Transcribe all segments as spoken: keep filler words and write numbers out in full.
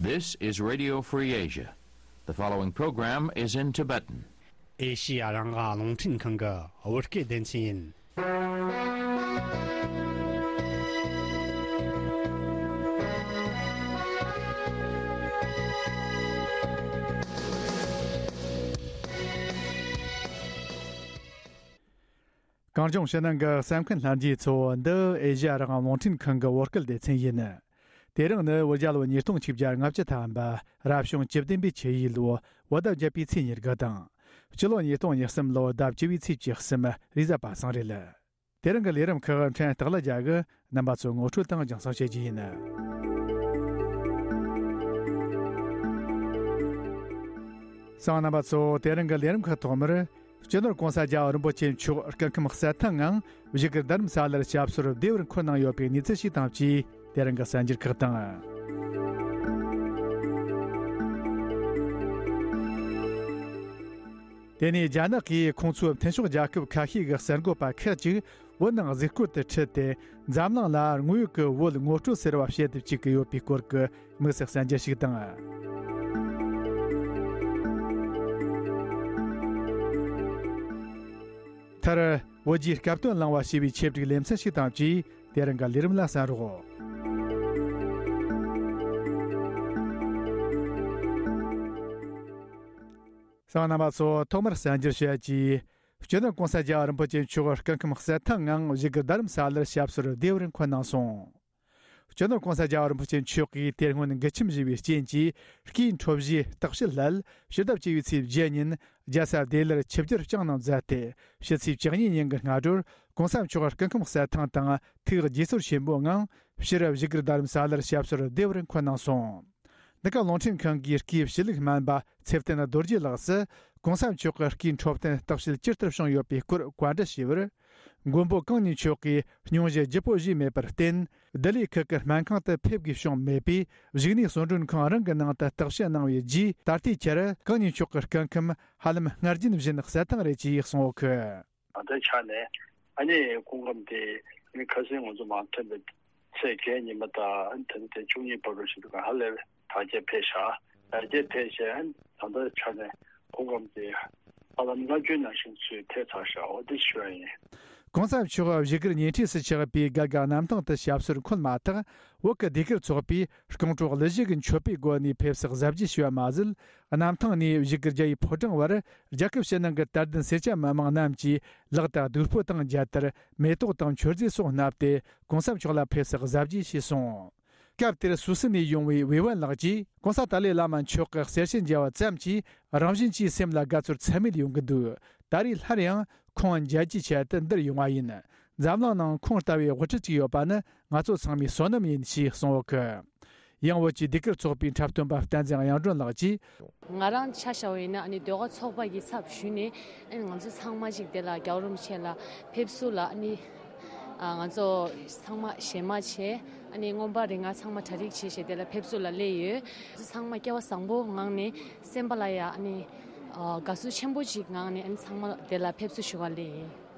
This is Radio Free Asia. The following program is in Tibetan. ཨེ་ཤི་ཡ་རང་དབང་རླུང་འཕྲིན་ཁང་གི་བོད་སྐད་སྡེ་ཚན་ཡིན། གངས་ལྗོངས་ཕྱི་ནང་གི་གསན་མཁན་ལྷན་རྒྱས་ཚོ། འདི་ཨེ་ཤི་ཡ་རང་དབང་རླུང་འཕྲིན་ཁང་གི་བོད་སྐད་སྡེ་ཚན་ཡིན། དེ་རིང་ནི་བོད་རྒྱལ་ལོ་ཉིས་སྟོང་ཆིག་བརྒྱ་ལྔ་བཅུ་ཐམ་པ། རབ་བྱུང་བཅུ་བདུན་པའི་ཆུ་ཡོས་ལོ། བོད་ཟླ་བརྒྱད་པའི་ཚེས་ཉེར་དགུ་དང་། སྤྱི་ལོ་ཉིས་སྟོང་ཉེར་གསུམ་ལོ་ཟླ་བཅུ་བའི་ཚེས་བཅུ་གསུམ། རེས་གཟའ་པ་སངས་རེད། དེ་རིང་གི་ལས་རིམ་ཁག་ཕྲན་སྟག་ལྷ་རྒྱལ་གྱིས་རྣམ་པ་ཚོ་ངོ་སྤྲོད་དང་རྒྱང་སྲིང་བྱེད་རྒྱུ་ཡིན། གསན་མཁན་རྣམ་པ་ཚོ། དེ་རིང་གི་ལས་རིམ་ཁག་ཐོག་མར། སྤྱི་ནོར་༸གོང་ས་༸རྒྱལ་བ་རིན་པོ་ཆེ་མཆོག་སྐུ་ཁམས་གསལ་ཐང་ངང་བཞུགས་སྒར་རྡ་རམ་ས་ལར་སྐྱབས་གསོལ་བདེ་བར་འཁོད་གནང་ཡོད་པའི་གནས་ཚུལ་ཞིག་དང་བཅས། དེ་རིང་གི་གསར་འགྱུར་ཁག་དང་། དེ་ནས་རྒྱ་ནག་གིས་ཁོང་ཚོའི་མཐུན་ཕྱོགས་རྒྱལ་ཁབ་ཁ་ཤས་ཀྱི་གསར་འགོད་པ་ཁག་ཅིག་བོད་ནང་གཟིགས་སྐོར་དུ་ཁྲིད་དེ། འཛམ་གླིང་ལ་དངོས་ཡོད་ཀྱི་བོད་ངོ་སྤྲོད་ཟེར་བ་བྱེད་དུ་བཅུག་གི་ཡོད་པའི་སྐོར་གྱི་དམིགས་བསལ་གསར་འགྱུར་ཞིག་དང་། མཐར། བོད་ཀྱི་སྐབས་དོན་བླངས་པ་ཞེས་པའི་ཆེད་བསྒྲིགས་ལེ་ཚན་ཞིག་དང་བཅས། དེ་རིང་གི་ལས་རིམ་ལ་གསན་རོགས། གསན་མཁན་རྣམ་པ་ཚོ། ཐོག་མར་གསར་འགྱུར་བཤད་ཀྱིས། སྤྱི་ནོར་༸གོང་ས་༸རྒྱལ་བ་རིན་པོ་ཆེ་མཆོག་སྐུ་ཁམས་གསལ་ཐང་ངང་བཞུགས་སྒར་རྡ་རམ་ས་ལར་སྐྱབས་གསོལ་བདེ་བར་འཁོད་གནང་སོང་། སྤྱི་ནོར་༸གོང་ས་༸རྒྱལ་བ་རིན་པོ་ཆེ་མཆོག་གིས་དེ་སྔོན་འགུལ་ཁྱམས་བཞེས་པའི་རྐྱེན་གྱིས། སྐུའི་འཕྲོ་བཞེས་རྟགས་བཤད་སླད་ཕྱི་ཟླ་བཅུ་བའི་ཚེས་བརྒྱད་ཉིན་རྒྱལ་ས་ལྡི་ལིར་ཆིབས་བསྒྱུར་བསྐྱངས་གནང་མཛད་དེ། ཕྱི་ཚེས་བཅུ་གཉིས་ཉིན་གྱི་སྔ་དྲོར་༸གོང་ས་མཆོག་སྐུ་ཁམས་གསལ་ཐང་དང་ཐུགས་དགྱེས་གསོར་ཆེན་པོའི་ངང་ཕྱིར་བཞུགས་སྒར་རྡ་རམ་ས་ལར་སྐྱབས་གསོལ་བདེ་བར་འཁོད་གནང་སོང་། འདི་ག་རླུང་འཕྲིན་ཁང་གི་སྐུའི་ཕྱི་ལུགས་སྨན་པ་ཚེ་བརྟན་རྡོ་རྗེ་ལགས་སུ། ༸གོང་ས་མཆོག་གི་སྐུའི་འཕྲོད་བསྟེན་རྟགས་བཤད་ཇི་ལྟར་བྱུང་ཡོད་པའི་སྐོར་བཀའ་འདྲི་ཞུས་པར། མགོན་པོ་གང་ཉིད་མཆོག་གིས་སྙུང་གཞི་ལྗིད་པོ་བཞེས་མེད་པར་བརྟེན། ལྡི་ལི་ཁུལ་གྱི་སྨན་ཁང་དུ་ཕེབས་དགོས་བྱུང་མེད་པས། བཞུགས་གནས་གསོལ་མགྲོན་ཁང་རང་གི་ནང་དུ་རྟགས་བཤད་གནང་བའི་རྗེས། ད་ལྟའི་ཆར་གང་ཉིད་མཆོག་གི་སྐུ་ཁམས་ཧ་ལམ་སྔར་རྒྱུན་བཞིན་གསལ་ཐང་རེད་ཅེས་གསུངས་ཡོད་ཀི། ད་ལྟའི་ཆ་ནས་ཨ་ནི་སྐུ་ཁམས་དེ་ནི་ཁ་སང་ང་ཚོ་མར་ཐོན་པའི་ཚེས་བརྒྱད་ཉི་མ་དང་ཨ་ནི་ད་ནི་དེ་བཅུ་གཉིས་བར་དུ་ཞིག་འདུག་ག་ཧ་ལས་པའི་དར་རྒྱས་འཕེལ་ཤག་དར་རྒྱས་འཕེལ་བྱས་ཨ་ནི་ད་ལྟའི་ཆ་ནས་སྐུ་ཁམས་དེ་ཧ་ལམ་སྔར་རྒྱུན་ནང་བཞིན་ཚུལ་ཐེབས་ཚར་ཤག་འོ་དེ་ཞུ་ཡ་ཡིན། ༸གོང་ས་མཆོག་བཞུགས་སྒར་ཉེ་འཁྲིས་སུ་ཆགས་པའི་སྒར་གྱི་གནམ་ཐང་དུ་སྐྱབས་གསོལ་འཁོད་མ་ཐག་བོད་ཀྱི་ཟློས་གར་ཚོགས་པས་རྐང་བྲོ་གླུ་གཞས་ཀྱི་མཆོད་པའི་སྒོ་ནས་ཕེབས་བསུ་གཟབ་རྒྱས་ཞུས་པ་མ་ཟད། གནམ་ཐང་ནས་བཞུགས་སྒར་རྒྱ་ཡི་ཕོ་བྲང་བར་རྒྱལ་ཁབ་ཕྱི་ནང་གི་དད་ལྡན་སེར་སྐྱ་མི་མང་རྣམས་ཀྱིས་ལག་ཏུ་གདུགས་ཕོར་དང་མཇལ་དར། མེ་ཏོག་དང་མཆོད་རྫས་སོགས་བསྣམས་ཏེ་༸གོང་ས་མཆོག་ལ་ཕེབས་བསུ་གཟབ་རྒྱས་བྱས་སོང་། སྐབས་དེར་སུད་སི་ནས་ཡོང་བའི་ཝེ་ཝན་ལགས་ཀྱིས། ༸གོང་ས་ཏཱ་ལའི་བླ་མ་མཆོག་གི་གསེར་ཞུ་མཇལ་བ་ཙམ་གྱིས་རང་བཞིན་གྱིས་སེམས་ལ་དགའ་ཚོར་ཚད་མེད་ཡོང་གི་འདུག་ད་རེས་སླར་ཡང་ཁོང་མཇལ་རྒྱུའི་ཆེད་དུ་འདིར་ཡོང་བ་ཡིན། འཛམ་གླིང་ནང་ཁོང་ལྟ་བུའི་དབུ་ཁྲིད་ཅིག་ཡོད་པ་ནི་ང་ཚོ་ཚང་མའི་བསོད་ནམས་ཡིན་ཞེས་གསུངས་ཡོད་ཀི། ཡང་བོད་ཀྱི་ཟློས་གར་ཚོགས་པའི་འཁྲབ་སྟོན་པ་བསྟན་འཛིན་དབྱངས་སྒྲོན་ལགས་ཀྱིས། ང་རང་ཆ་བཞག་པ་ཡིན་ན་ཨ་ནི་ཟློས་གར་ཚོགས་པ་གི་ཚབ་ཞུས་ནས་ཨ་ནི་ང་ཚོ་ཚང་མ་ཅིག་དེ་ལ་རྒྱལ་བ་རིན་པོ་ཆེ་ལ་ཕེབས་བསུ་ལ་ཨ་ནི་ཨ་ང་ཚོ་ཚང་མ་ཞལ་མ་བྱས་ཨ་ནི་མངོན་པ་རིག་སྔགས་ཚང་མ་གྲ་སྒྲིག་བྱས་བྱས་དེ་ལ་ཕེབས་བསུ་ལ་སླེབས་ཡོད། ང་ཚོ་ཚང་མ་སྐལ་བ་བཟང་པོ་ངང་ནས་སེམས་པ་ལ་ཡ་ཨ་ནི་ཨ་དགའ་བསུ་ཆེན་པོ་ཅིག་ངང་ནས་ཨ་ནི་ཚང་མ་དེ་ལ་ཕེབས་བསུ་ཞུ་བ་སླེབས་ཡིན།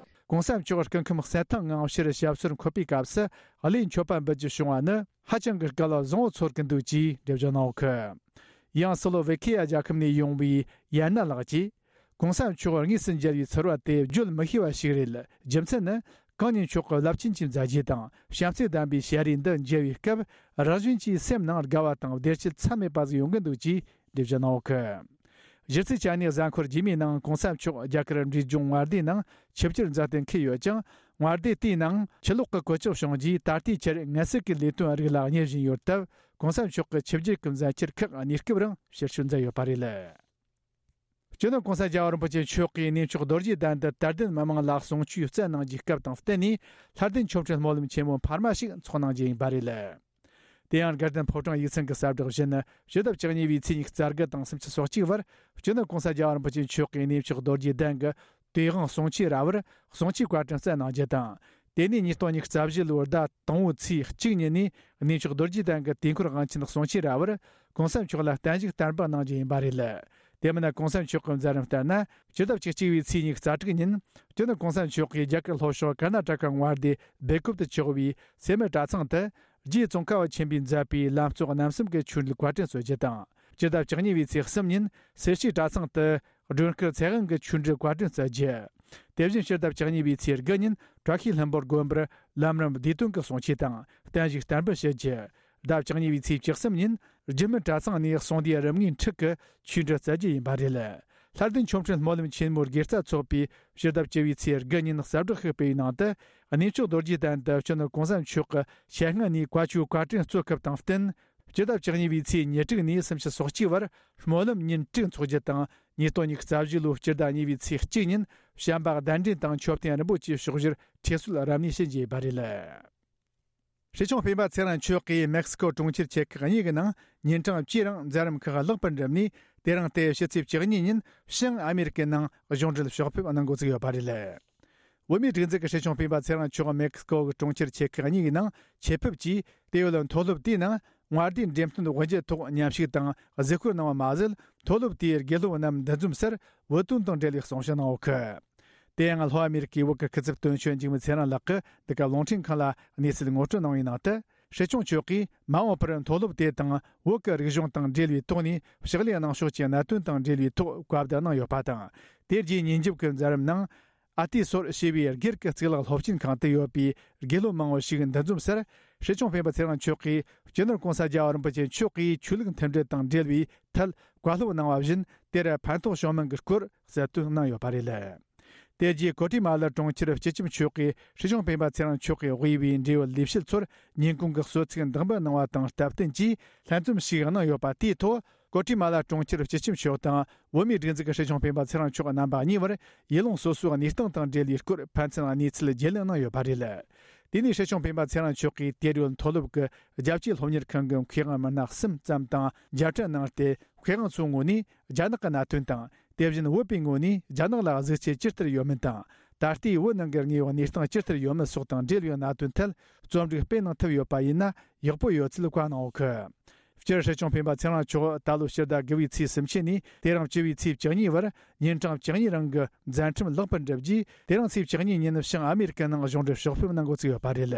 ༸གོང་ས་མཆོག་སྐུ་ཁམས་གསལ་ཐང་ངང་ཕྱིར་སྐྱབས་གསོལ་འཁོད་པའི་སྐབས་སུ་གླུ་མཆོད་པ་འབུལ་རྒྱུ་བྱུང་བ་ནི་ཧ་ཅང་གི་སྐལ་བ་བཟང་བོ་ཚོར་གྱི་འདུག་ཅེས་འགྲེལ་བརྗོད་གནང་ཡོད་ཀི། ཡང་སི་ལོ་ཝེ་ཁི་ཡ་རྒྱལ་ཁབ་ནས་ཡོང་བའི་ཡན་ན་ལགས་ཀྱིས། ༸གོང་ས་མཆོག་དངོས་སུ་མཇལ་བའི་ཚོར་བ་དེ་བརྗོད་མི་ཤེས་པ་ཞིག་རེད། རྒྱུ་མཚན་ནི་གང་ཉིད་མཆོག་གི་རླབས་ཆེན་གྱི་མཛད་རྗེས་དང་བྱམས་བརྩེ་ལྡན་པའི་ཞལ་རས་འདི་མཇལ་བའི་སྐབས་རང་བཞིན་གྱིས་སེམས་ནང་དགའ་བ་དང་བདེ་སྐྱིད་ཚད་མེད་པ་ཟིག་ཡོང་གི་འདུག་ཅེས་འགྲེལ་བརྗོད་གནང་ཡོད་ཀི། གཞི་རྩའི་ཆ་ནས་གཟའ་འཁོར་རྗེས་མའི་ནང་༸གོང་ས་མཆོག་རྒྱ་གར་འབྲས་ལྗོངས་མངའ་སྡེའི་ནང་ཆིབས་བསྒྱུར་མཛད་དེ་འཁེལ་ཡོད་ཅིང་། མངའ་སྡེ་དེའི་ནང་ཕྱི་ལོགས་ཀྱི་གོད་ཆག་བྱུང་རྗེས་ད་ལྟའི་ཆར་ངལ་གསོ་གི་ལས་དོན་རིགས་ལ་གཉེར་བཞིན་ཡོད་སྟབས། ༸གོང་ས་མཆོག་གི་ཆིབས་བསྒྱུར་གྱི་མཛད་འཆར་ཁག་གནས་སྐབས་རིང་ཕྱིར་བསྐྱོད་མཛད་ཡོད་པ་རེད། སྤྱི་ནོར་༸གོང་ས་རྒྱལ་བ་རིན་པོ་ཆེ་མཆོག་གིས་གནས་མཆོག་རྡོ་རྗེ་གདན་དུ་དད་ལྡན་མི་མང་ལ་གསུང་ཆོས་སྩལ་གནང་རྒྱུའི་སྐབས་དང་བསྟུན་ནས་ལྷ་ལྡན་ཆོ་འཕྲུལ་སྨོན་ལམ་ཆེན་མོ་འཕར་མ་ཞིག་འཚོགས་གནང་རྒྱུ་ཡིན་པ་རེད། དེ་ཡང་དགའ་ལྡན་ཕོ་བྲང་ཡིག་ཚང་གི་གསལ་བསྒྲགས་བཞིན་ཕྱི་ཟླ་བཅུ་གཉིས་པའི་ཚེས་ཉི་ཤུ་རྩ་དགུ་དང་སུམ་ཅུ་སོ་གཅིག་བར་སྤྱི་ནོར་༸གོང་ས་རྒྱལ་བ་རིན་པོ་ཆེ་མཆོག་གིས་གནས་མཆོག་རྡོ་རྗེ་གདན་གྱི་དོས་དབང་གསུང་ཆོས་ར་བར་གསུང་ཆོས་བཀའ་དྲིན་སྩལ་གནང་རྒྱུ་དང་། དེ་ནས་ཉིས་སྟོང་ཉི་ཤུ་རྩ་བཞི་ལོའི་ཟླ་དང་པོའི་ཚེས་གཅིག་ཉིན་ནས་གནས་མཆོག་རྡོ་རྗེ་གདན་གྱི་དུས་འཁོར་དབང་ཆེན་གསུང་ཆོས་ར་བར་༸གོང་ས་མཆོག་ལ་བརྟན་བཞུགས་བསྟར་འབུལ་གནང་རྒྱུ་ཡིན་པ་རེད། དེ་མིན་༸གོང་ས་མཆོག་གི་མཛད་རིམ་ལྟར་ན་སྤྱི་ཟླ་བཅུ་གཅིག་པའི་ཚེས་ཉི་ཤུ་རྩ་དྲུག་ཉིན་སྤྱི་ནོར་༸གོང་ས་མཆོག་གིས་རྒྱ་གར་ལྷོ་ཕྱོགས་ཀར་ན་ཊ་ཀ་མངའ་སྡེ་སྦེལ་ཀོབ་ཏུ་ཆགས་པའི་སེ་མེ་གྲྭ་ཚང་དུ། རྗེ་ཙོང་ཁ་པ་ཆེན་པོས་མཛད་པའི་ལམ་གཙོ་རྣམ་གསུམ་གྱི་ཆོས་འབྲེལ་བཀའ་དྲིན་གསོལ་རྒྱུ་དང་། སྤྱི་ཟླ་བཅུ་གཉིས་པའི་ཚེས་གསུམ་ཉིན་སེར་བྱེས་གྲྭ་ཚང་དུ་སྒྲོལ་དཀར་ཚེ་དབང་གི་ཆོས་འབྲེལ་བཀའ་དྲིན་སྩལ་རྒྱུ། དེ་བཞིན་སྤྱི་ཟླ་བཅུ་གཉིས་པའི་ཚེས་དགུ་ཉིན་བཀྲ་ཤིས་ལྷུན་པོ་དགོན་པར་ལམ་རིམ་བདེ་དོན་གྱི་གསུང་ཆོས་དང་བརྟན་བཞུགས་བསྟར་འབུལ་ཞུ་རྒྱུ། ཟླ་བཅུ་གཉིས་པའི་ཚེས་བཅུ་གསུམ་ཉིན་རྒྱུད་སྨིན་གྲྭ་ཚང་ནས་གསུང་སྡེའི་རིམ་ལྔའི་འཁྲིག་གི་ཆོས་འབྲེལ་སྩལ་རྒྱུ་ཡིན་པ་རེད། ལྷ་ལྡན་ཆོ་འཕྲུལ་སྨོན་ལམ་ཆེན་མོའི་དགེ་རྩ་ཚོགས་པས་སྤྱི་ཟླ་བཅུ་བའི་ཚེས་དགུ་ཉིན་གསལ་བསྒྲགས་ཤིག་སྤེལ་བའི་ནང་དུ། གནས་མཆོག་རྡོ་རྗེ་གདན་དུ་སྤྱི་ནོར་གོང་ས་མཆོག་གི་ཞལ་སྔ་ནས་བཀའ་ཆོས་བཀའ་དྲིན་གསོལ་སྐབས་དང་བསྟུན། སྤྱི་ཟླ་བཅུ་གཉིས་པའི་ཚེས་ཉེར་དྲུག་ནས་སུམ་ཅུ་སོ་གཅིག་བར་སྨོན་ལམ་ཉིན་དྲུག་འཚོགས་རྒྱུ་དང་། ཉིས་སྟོང་ཉི་ཤུ་རྩ་བཞི་ལོའི་སྤྱི་ཟླ་གཉིས་པའི་ཚེས་གཅིག་ཉིན་བྱམས་པ་གདན་འདྲེན་དང་མཆོད་རྟེན་རིན་པོ་ཆེའི་ཕྱོགས་བཞིར་ཁྲི་གསོལ་རབ་གནས་ཞུ་རྒྱུ་ཡིན་པ་རེད། སྲིད་སྐྱོང་སྤེན་པ་ཚེ་རིང་མཆོག་གིས་མེག་སི་ཀོ་གྲོང་ཁྱེར་ཆེ་ཁག་གཉིས་ཀྱི་ནང་ཉིན་གྲངས་བཅུའི་རིང་མཛད་རིམ་ཁག་ལེགས་པར་འགྲུབ་ནས། དེ་རིང་སྟེ་ཕྱི་ཚེས་བཅུ་གཉིས་ཉིན་བྱང་ཨ་མེ་རི་ཀའི་ནང་གཞུང་འབྲེལ་ཕྱོགས་ཕེབས་གནང་འགོ་ཚུགས་ཡོད་པ་རེད། བོད་མིའི་སྒྲིག་འཛུགས་ཀྱི་སྲིད་སྐྱོང་སྤེན་པ་ཚེ་རིང་མཆོག་མེག་སི་ཀོ་གི་གྲོང་ཁྱེར་ཆེ་ཁག་གཉིས་ཀྱི་ནང་ཆེད་ཕེབས་ཀྱིས། དེ་ཡོད་མཐོ་སློབ་དེའི་ནང་མངའ་སྡེའི་འགྲེམས་སྟོན་དབུ་འབྱེད་ཐོག་མཉམ་ཞུགས་དང་གཟིགས་སྐོར་གནང་བ་མ་ཟད། མཐོ་སློབ་དེའི་དགེ་སློབ་རྣམས་འདུ་འཛོམས་སར་བོད་དོན་དང་འབྲེལ་བའི་གསུང་བཤད་གནང་ཡོད་གི། དེ་ཡང་ལྷོ་ཨ་མེ་རི་ཀའི་བོད་ཀྱི་སྐུ་ཚབ་དོན་གཅོད་འཇིགས་མེད་ཚེ་རིང་ལགས་ཀྱིས་འདི་ག་རླུང་འཕྲིན་ཁང་ལ་གནས་ཚུལ་ངོ་སྤྲོད་གནང་བའི་ནང་དུ། སྲིད་སྐྱོང་མཆོག་གིས་མ་འོངས་པར་མཐོ་སློབ་དེ་དང་བོད་ཀྱི་རིག་གཞུང་དང་འབྲེལ་བའི་ཐོག་ནས་ཕྱག་ལས་གནང་ཕྱོགས་ཀྱི་གནད་དོན་དང་འབྲེལ་བའི་ཐོག་བཀའ་བསྡུར་གནང་ཡོད་པ་དང་། དེ་རྗེས་ཉིན་རྒྱབ་ཀྱི་མཛད་རིམ་ནང་། ཨ་ཏི་སོར་ཞེས་པའི་སྒེར་གྱི་གཙུག་ལག་སློབ་ཆེན་ཁང་དུ་ཡོད་པའི་དགེ་སློབ་མང་བོ་ཞིག་འདུ་འཛོམས་སར། སྲིད་སྐྱོང་སྤེན་པ་ཚེ་རིང་མཆོག་གིས་སྤྱི་ནོར་གོང་ས་རྒྱལ་བ་རིན་པོ་ཆེ་མཆོག་གིས་ཆོས་ལུགས་མཐུན་སྒྲིལ་དང་འབྲེལ་བའི་ཐད་བཀའ་སློབ་གནང་བ་བཞིན། དེར་ཕན་ཐོགས་བྱུང་མིན་གྱི་སྐོར་གསལ་སྟོན་གནང་ཡོད་པ་རེད། དེ་རྗེས་ཀོ་ཏི་མ་ལ་གྲོང་ཁྱེར་སྤྱི་ཁྱབ་མཆོག་གིས་སྲིད་སྐྱོང་སྤེན་པ་ཚེ་རིང་མཆོག་གིས་དབུས་པའི་འབྲེལ་ཡོད་ལས་བྱེད་ཚོར་ཉིན་གུང་གི་གསོལ་ཚིགས་འདེགས་འབུལ་གནང་བ་དང་སྟབས་བསྟུན་གྱིས་ལྷན་འཛོམས་ཤིག་གནང་ཡོད་པ་དེའི་ཐོག་ཀོ་ཏི་མ་ལ་གྲོང་ཁྱེར་སྤྱི་ཁྱབ་མཆོག་དང་། བོད་མིའི་སྒྲིག་འཛུགས་ཀྱི་སྲིད་སྐྱོང་སྤེན་པ་ཚེ་རིང་མཆོག་རྣམ་པ་གཉིས་བར་ཡུལ་ལུང་སོ་སོའི་གནས་སྟངས་དང་འབྲེལ་བའི་སྐོར་ཕན་ཚུན་གནས་ཚུལ་བརྗེ་ལེན་གནང་ཡོད་པ་རེད། དེ་ནས་སྲིད་སྐྱོང་སྤེན་པ་ཚེ་རིང་མཆོག་གིས་དེར་ཡོད་མཐོ་སློབ་ཀྱི་རྒྱ་སྐྱེད་སློབ་གཉེར་ཁང་གི་མཁས་དབང་མི་སྣ་གསུམ་ཙམ་དང་མཇལ་འཕྲད་གནང་སྟེ། མཁས་དབང་ཚོའི་ངོས་ནས་རྒྱ་ནག་གི་གནད་དོན་དང་། དེ་བཞིན་བོད་པའི་ངོས་ནས་རྒྱ་ནག་ལ་གཟིགས་ཆས་ཇི་ལྟར་ཡོད་མིན་དང་། ད་ལྟའི་བོད་ནང་གི་དངོས་ཡོད་གནས་སྟངས་ཇི་ལྟར་ཡོད་མེད་སོགས་དང་འབྲེལ་བའི་གནད་དོན་ཐད་རྩོམ་སྒྲིག་སྤེལ་གནང་ཐུབ་ཡོད་པ་ཡིན་ན་ཡག་པོ་ཡོད་ཚུལ་བཀའ་གནང་ཡོད་གི། སྤྱིར་སྲིད་སྐྱོང་སྤེན་པ་ཚེ་རིང་མཆོག་ད་ལོ་ཕྱི་ཟླ་དགུ་པའི་ཚེས་སུམ་ཅུ་ནས་དེ་རིང་བཅུ་པའི་ཚེས་བཅུ་གཉིས་བར་ཉིན་གྲངས་བཅུ་གཉིས་རིང་གི་མཛད་འཕྲིན་ལེགས་པར་འགྲུབ་རྗེས། དེ་རིང་ཚེས་བཅུ་གཉིས་ཉིན་བྱང་ཨ་མེ་རི་ཀའི་ནང་གཞུང་འབྲེལ་ཕྱོགས་ཕེབས་གནང་འགོ་ཚུགས་ཡོད་པ་རེད།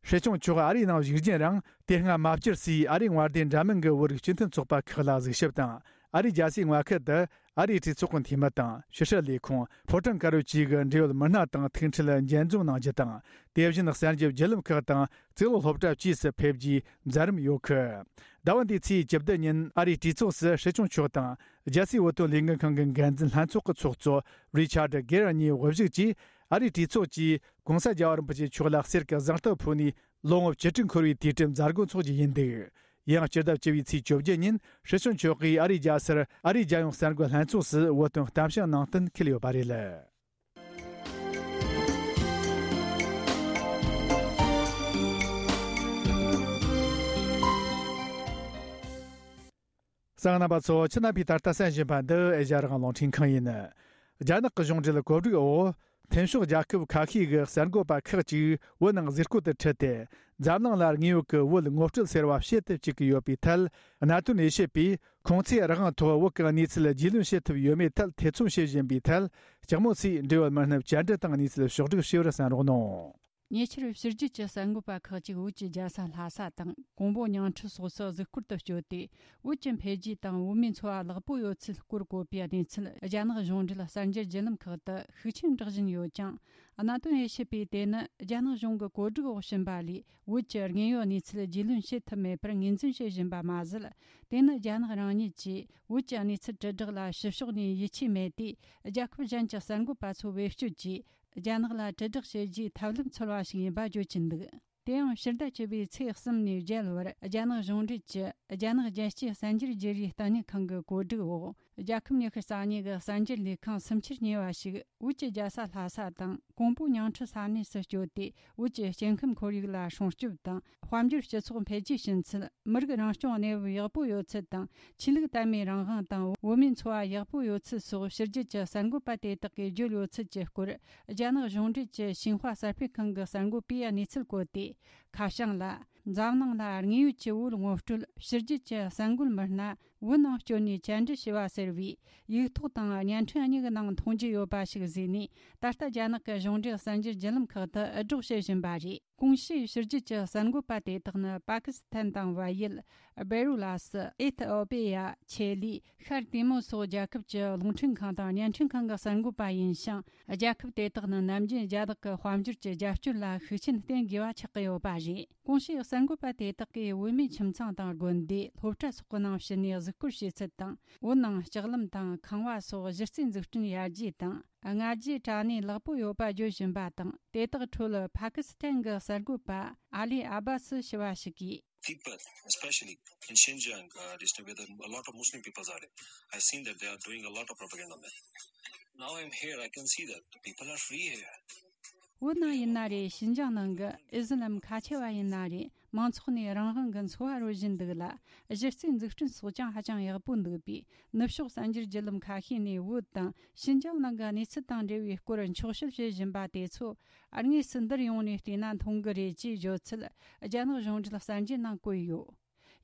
སྲིད་སྐྱོང་མཆོག་ཨ་རིའི་ནང་བཞུགས་རྒྱུན་རིང་དེ་སྔ་མ་བཅར་སའི་ཨ་རིའི་དངོས་བདེན་འདྲ་མིན་གྱི་བོད་རིགས་སྤྱི་མཐུན་ཚོགས་པ་ཁག་ལ་གཟིགས་ཞིབ་དང་། ཨ་རིའི་རྒྱལ་སའི་མངའ་ཁུལ་དུ་ཨ་རིའི་གྲོས་ཚོགས་ཀྱི་འཐུས་མི་དང་ཕྱི་སྲིད་ལས་ཁུངས་ཕོ་བྲང་དཀར་པོའི་ཆེད་ཀྱི་འབྲེལ་ཡོད་མི་སྣ་དང་ཐུག་འཕྲད་མཇལ་འཛོམས་གནང་རྒྱུ་དང་། དེ་བཞིན་གསར་འགྱུར་བརྒྱུད་ལམ་ཁག་དང་གཙུག་ལག་སློབ་གྲྭ་བཅས་སུ་ཕེབས་རྒྱུའི་མཛད་རིམ་ཡོད་གི། ཟླ་བ་འདིའི་ཚེས་བཅུ་བདུན་ཉིན་ཨ་རིའི་གྲོས་ཚོགས་སུ་སྲིད་སྐྱོང་མཆོག་དང་རྒྱལ་སའི་བོད་དོན་ལས་འགུལ་ཁང་གི་འགན་འཛིན་ལྷན་ཚོགས་ཀྱི་ཚོགས་གཙོ་རི་ཆར་ཌི་གེ་ར་གཉིས་དབུ་བཞུགས་ཀྱིས་ཨ་རིའི་གྲོས་ཚོགས་ཀྱིས་གོང་ས་རྒྱལ་བ་རིན་པོ་ཆེ་མཆོག་ལ་གསེར་གྱི་གཟེངས་རྟགས་ཕུལ་ནས། ལོ་ངོ་བཅུ་དྲུག་འཁོར་བའི་དུས་དྲན་མཛད་སྒོ་འཚོགས་རྒྱུ་ཡིན་འདུག། ཡང་སྤྱི་ཟླ་བཅུ་པའི་ཚེས་བཅོ་བརྒྱད་ཉིན་སྲིད་སྐྱོང་མཆོག་གིས་ཨ་རིའི་རྒྱལ་སར་ཨ་རིའི་རྒྱལ་ཡོངས་གསར་འགོད་ལྷན་ཚོགས་སུ་བོད་དོན་གཏམ་བཤད་གནང་གཏན་འཁེལ་ཡོད་པ་རེད། གསན་མཁན་རྣམ་པ་ཚོ། ཁྱེད་རྣམ་པས་ད་ལྟ་གསན་བཞིན་པ་འདི་ཨེ་ཤ་ཡ་རང་དབང་རླུང་འཕྲིན་ཁང་ཡིན། རྒྱ་ནག་གི་གཞུང་འབྲེལ་གོ་སྒྲིག་འོག་མཐུན་ཕྱོགས་རྒྱལ་ཁབ་ཁ་ཤས་ཀྱི་གསར་འགོད་པ་ཁག་ཅིག་བོད་ནང་གཟིགས་སྐོར་དུ་ཁྲིད་དེ། འཛམ་གླིང་ལ་དངོས་ཡོད་ཀྱི་བོད་ངོ་སྤྲོད་ཟེར་བ་བྱེད་དུ་བཅུག་གི་ཡོད་པའི་ཐད། གནད་དོན་དབྱེ་ཞིབ་པས་ཁོང་ཚོས་རང་དབང་ཐོག་བོད་ཀྱི་གནས་ཚུལ་རྒྱུས་ལོན་བྱེད་ཐུབ་ཡོད་མེད་ཐད་ཐེ་ཚོམ་བྱེད་བཞིན་པའི་ཐད། ལྕགས་མོ་ཚོས་འབྲེལ་ཡོད་མི་སྣར་བཅར་འདྲི་དང་གནས་ཚུལ་ཕྱོགས་བསྒྲིགས་བྱས་པར་གསན་རོགས་གནང་། ཉེ་ཆར་ཕྱི་རྒྱལ་གྱི་གསར་འགོད་པ་ཁག་ཅིག་བོད་ཀྱི་རྒྱལ་ས་ལྷ་ས་དང་ཀོང་པོ་ཉང་ཁྲི་སོགས་སུ་གཟིགས་སྐོར་དུ་བསྐྱོད་དེ། བོད་ཀྱི་འཕེལ་རྒྱས་དང་བོད་མིའི་འཚོ་བ་ལེགས་པོ་ཡོད་ཚུལ་སྐོར་བཀོད་པའི་གནས་ཚུལ་རྒྱ་ནག་གཞུང་འབྲེལ་གསར་འགྱུར་བརྒྱུད་ལམ་ཁག་ཏུ་ཤུགས་ཆེན་བསྒྲགས་བཞིན་ཡོད་ཀྱང་། གནད་དོན་དབྱེ་ཞིབ་པས་དེ་ནི་རྒྱ་ནག་གཞུང་གི་བཀོད་སྒྲིག་འོག་ཕྱིན་པ་ལས། བོད་ཀྱི་དངོས་ཡོད་གནས་ཚུལ་རྒྱུས་ལོན་བྱེད་ཐུབ་མེད་པར་ངོས་འཛིན་བྱེད་བཞིན་པ་མ་ཟད། དེ་ནི་རྒྱ་ནག་རང་ཉིད་ཀྱིས་བོད་ཀྱི་གནས་ཚུལ་དྲིལ་བསྒྲགས་ལ་ཕྱི་ཕྱོགས་ནས་ཡིད་ཆེས་མེད་དུས། རྒྱལ་ཁབ་གཞན་གྱི་གསར་འགོད་པ་ཚོ་བེད་སྤྱོད་ཀྱིས། རྒྱ་ནག་ལ་དྲིལ་བསྒྲགས་བྱེད་རྒྱུའི་ཐབས་ལམ་འཚོལ་བ་ཞིག་ཡིན་པ་བརྗོད་ཀྱིན་འདུག། དེ་ཡང་ཕྱི་ཟླ་བཅུ་པའི་ཚེས་གསུམ་ནས་བརྒྱད་བར་རྒྱ་ནག་གཞུང་འབྲེལ་གྱི་རྒྱ་ནག་རྒྱལ་སྤྱིའི་གསར་འགྱུར་བརྗེ་རེས་ལྟེ་གནས་ཁང་གི་བཀོད་སྒྲིག་འོག། རྒྱལ་ཁབ་ཉི་ཤུ་རྩ་གཉིས་ཀྱི་གསར་འགྱུར་ལས་ཁང་སུམ་ཆར་ཉེ་བ་ཞིག་བོད་ཀྱི་རྒྱལ་ས་ལྷ་ས་དང་ཀོང་པོ་ཉང་ཁྲི་ས་གནས་སུ་བསྐྱོད་དེ། བོད་ཀྱི་སྐྱེ་ཁམས་ཁོར་ཡུག་ལ་སྲུང་སྐྱོབ་དང་། དཔལ་འབྱོར་སྤྱི་ཚོགས་འཕེལ་རྒྱས་ཕྱིན་ཚུལ། མི་རིགས་རང་སྐྱོང་གནས་བབ་ཡག་པོ་ཡོད་ཚུལ་དང་། ཆོས་ལུགས་དད་མོས་རང་དབང་དང་། བོད་མིའི་འཚོ་བ་ཡག་པོ་ཡོད་ཚུལ་སོགས་ཕྱི་རྒྱལ་གྱི་གསར་འགོད་པ་དེ་དག་གིས་བརྗོད་ཡོད་ཚུལ་གྱི་སྐོར། རྒྱ་ནག་གཞུང་འབྲེལ་གྱི་ཤིན་ཧྭ་གསར་སྤེལ་ཁང་གི་གསར་འགོད་པས་གནས་ཚུལ་བཀོད་དེ། ཁ་བྱང་ལ། འཛམ་གླིང་ལ་དངོས་ཡོད་ཀྱི་བོད་ངོ་སྤྲོད། ཕྱི་རྒྱལ་གྱི་གསར་འགོད་མི་སྣ་བོད་ནང་བསྐྱོད་ནས་བཅར་འདྲི་བྱས་པ་ཟེར་བའི་ཡིག་ཐོག་དང་བརྙན་འཕྲིན་གཉིས་ཀྱི་ནང་མཐོང་རྒྱུ་ཡོད་པ་ཞིག་གཟིགས་ནས། ད་ལྟ་རྒྱ་ནག་གི་གཞུང་འབྲེལ་གསར་འགྱུར་བརྒྱུད་ལམ་ཁག་ཏུ་འུད་སྒྲོག་བྱེད་བཞིན་པ་རེད། གོང་ཞུས་ཕྱི་རྒྱལ་གྱི་གསར་འགོད་པ་དེ་དག་ནི་པ་ཀི་སི་ཐན་དང་བལ་ཡུལ། སྦེ་རུ་ལ་སི། ཨེ་ཐི་ཨོ་པེ་ཡ། ཆེ་ལི། ཤར་ཏི་མོ་སོགས་རྒྱལ་ཁབ་ཀྱི་རླུང་འཕྲིན་ཁང་དང་བརྙན་འཕྲིན་ཁང་གི་གསར་འགོད་པ་ཡིན་ཞིང་། རྒྱལ་ཁབ་དེ་དག་ནི་ནམ་རྒྱུན་རྒྱ་ནག་གི་དཔལ་འབྱོར་གྱི་རྒྱབ་སྐྱོར་ལ་ཤུགས་རྐྱེན་བསྟེན་དགོས་པ་ཆགས་ཀྱི་ཡོད་པ་རེད། གོང་ཞུས་གསར་འགོད་པ་དེ་དག་གིས་བོད་མིའི་ཁྱིམ་ཚང་དང་དགོན་སྡེ། སློབ་གྲྭ་སོགས་ཀྱི་ནང་ཕྱིན་ནས་གཟིགས་སྐོར་བྱེད་ཚུལ་དང་། བོད་ནང་ལྕགས་ལམ་དང་ཁང་བ་སོགས་གཞི་རྩའི་འཛུགས་སྐྲུན་ཡར་རྒྱས་དང་། སྔ་རྗེས་དྲ་གནས་ལེགས་པོ་ཡོད་པ་བརྗོད་བཞིན་པ་དང་། དེ་དག་ཁྲོད་པ་ཀི་སི་ཐན་གྱི་གསར་འགོད་པ་ཨ་ལི་ཨ་བ་སི་ཞུ་བ་ཞིག་གིས། People, especially in Xinjiang, uh, district where there are a lot of Muslim peoples are. I've seen that they are doing a lot of propaganda, man. Now I'm here, I can see that the people are free here. བོད་ནང་ཡིན་ན་རེད། ཤིན་ཅང་ནང་གི་ཨི་སི་ལམ་ཁ་ཆེ་བ་ཡིན་ན་རེད། མང་ཚོགས་ནས་རང་དབང་གི་འཚོ་བ་རོལ་བཞིན་འདུག་ལ། གཞི་རྩའི་འཛུགས་སྐྲུན་སོགས་ཀྱང་ཧ་ཅང་ཡག་པོ་འདུག་པས། ནུབ་ཕྱོགས་གསར་འགྱུར་བརྒྱུད་ལམ་ཁ་ཤས་ནས་བོད་དང་ཤིན་ཅང་ནང་གི་གནས་ཚུལ་དང་འབྲེལ་བའི་སྐོར་འཁྱོག་བཤད་བྱེད་བཞིན་པ་དེ་ཚོ། དངོས་སུ་འདིར་ཡོང་ནས་བལྟས་ན་མཐོང་གི་རེད་ཅེས་བརྗོད་ཚུལ། རྒྱ་ནག་གཞུང་འབྲེལ་གསར་འགྱུར་ནང་བཀོད་ཡོད།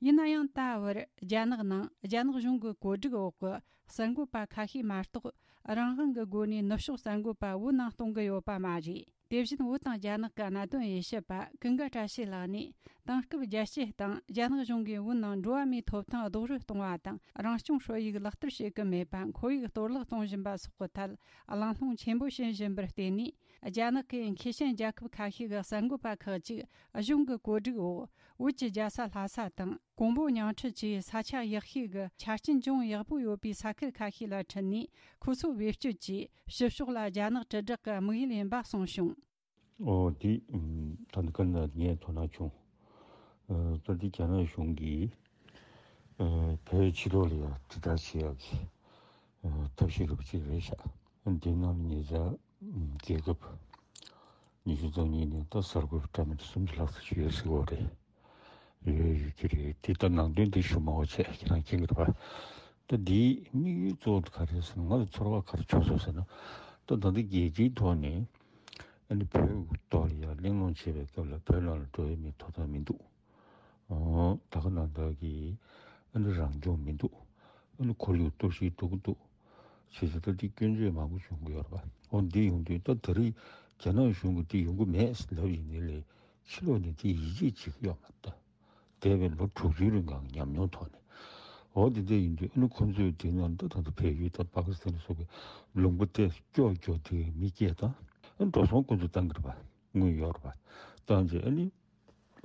ཡིན་ན་ཡང་ད་བར་རྒྱ་ནག་ནང་རྒྱ་ནག་གཞུང་གི་བཀོད་སྒྲིག་འོག་གི་གསར་འགོད་པ་ཁ་ཤས་མ་གཏོགས། རང་དབང་གི་སྒོ་ནས་ནུབ་ཕྱོགས་གསར་འགོད་པ་བོད་ནང་གཏོང་གི་ཡོད་པ་མ་རེད། དེ་བཞིན་བོད་དང་རྒྱ་ནག་གི་གནད་དོན་དབྱེ་ཞིབ་པ་ཀུན་དགའ་བཀྲ་ཤིས་ལགས་ནས། དེང་སྐབས་རྒྱལ་སྤྱིའི་སྟེང་རྒྱ་ནག་གཞུང་གིས་བོད་ནང་འགྲོ་བ་མིའི་ཐོབ་ཐང་རྡོག་རོལ་གཏོང་བ་དང་། རང་སྐྱོང་ཧྲོལ་ཡིག་ལག་བསྟར་བྱེད་ཀྱི་མེད་པ། ཁོར་ཡུག་གཏོར་བརླག་གཏོང་བཞིན་པ་སོགས་ཀྱི་ཐད་གླེང་སློང་ཆེན་པོ་བྱེད་བཞིན་པར་བརྟེན་ནས། རྒྱ་ནག་གི་མཁས་ཅན་རྒྱལ་ཁབ་ཁ་ཤས་ཀྱི་གསར་འགོད་པ་ཁག་ཅིག་གཞུང་གི་བཀོད་སྒྲིག་འོག་བོད་ཀྱི་རྒྱལ་ས་ལྷ་ས་དང་། ཀོང་པོ་ཉང་ཁྲི་བཅས་ས་ཆ་ཡག་ཤོས་ཀྱི་ཆ་རྐྱེན་ཅུང་ཡག་པོ་ཡོད་པའི་ས་ཁུལ་ཁ་ཤས་ལ་ཁྲིད་ནས། ཁོ་ཚོ་བེད་སྤྱོད་ཀྱིས་ཕྱི་ཕྱོགས་ལ་རྒྱ་ནག་དྲིལ་བསྒྲགས་ཀྱི་དམིགས་ཡུལ་ཡིན་པ་གསུངས་བྱུང་། ཨོ་དེ་ད་ནི་ཀ་ན་ངས་དོ་སྣང་བྱུང་། ད་དེ་རྒྱ་ནག་གཞུང་གིས་བོད་ཕྱི་ལོགས་ལ་ཡང་དྲིལ་བསྒྲགས་བྱེད་ཡག་གི་ཐབས་ཤེས་རུ་ཅིག་རེད་ཤག་འདི་ནང་ལ་ཉེ་ཆར་རྒྱལ་ཁབ་ཉི་ཤུ་རྩ་གཉིས་ནས་ད་གསར་འགོད་པ་འདྲ་མི་འདྲ་སུམ་ཅུ་ལྷག་ཙམ་ཞིག་ཡོད་ཟེར་གྱི་ཡོད་རེད། ཡོད་ཡོད་ཀྱི་རེད། དེ་ལྟར་ནང་དོན་དེ་ཞུ་མ་འོ་བྱས་ཁྱེད་རང་མཁྱེན་གྱི་རེད་པ། ད་འདིའི་དམིགས་ཡུལ་གཙོ་བོ་དེ་ག་རེ་ཟེར་ན། ང་ལ་ཚོར་བ་ག་རེ་བྱུང་སོང་ཟེར་ན། ད་ད་ལྟ་རྒྱལ་སྤྱིའི་ཐོག་ནས་ཨ་ནི་བོད་ཐོག་ལ་ཡང་གླེང་སློང་བྱེད་པའི་སྐབས་ལ་བོད་ནང་ལ་འགྲོ་ཡ་མིའི་ཐོབ་ཐང་མི་འདུག་ད་ག་ནང་བཞིན་གྱི་ཨ་ནི་རང་སྐྱོང་མི་འདུག་ཨ་ནི་ཁོར་ཡུག་གཏོར་བཤིག་འགྲོ་གི་འདུག་བྱས་ཙང་ད་འདི་སྐྱོན་བརྗོད་མང་པོ་བྱུང་གི་ཡོད་རེད་པ། འོ་འདི་ཡོང་དུས་ད་ད་རེས་རྒྱ་ནག་གཞུང་གིས་འདི་ཡོང་གི་མེད་ལབ་ཡིན་ནའི་ལས། ཕྱི་ལོགས་ནས་འདི་ཡིད་ཆེས་བྱེད་ཀྱི་ཡོད་མ་རེད་ད། འདས་པའི་ལོ་དྲུག་ཅུའི་རིང་གང་ཉམས་མྱོང་ཐོག་ནས། འོ་འདི་འདྲ་ཡིན་དུས་ཨ་ནི་ཁོང་ཚོས་དེ་ནང་ད་ད་ལྟ་བལ་ཡུལ་དང་པ་ཀི་སི་ཐན་སོགས་ཀྱི་ལུང་པ་དེ་སྐྱོ་སྐྱོ་དེ་མི་སྐྱེས་དང་། ཨ་ནི་འགྲོ་སོང་ཁོང་ཚོས་བཏང་གི་རེད་པ། དངུལ་ཡོད་རེད་པ། བཏང་རྗེས་ཨ་ནི།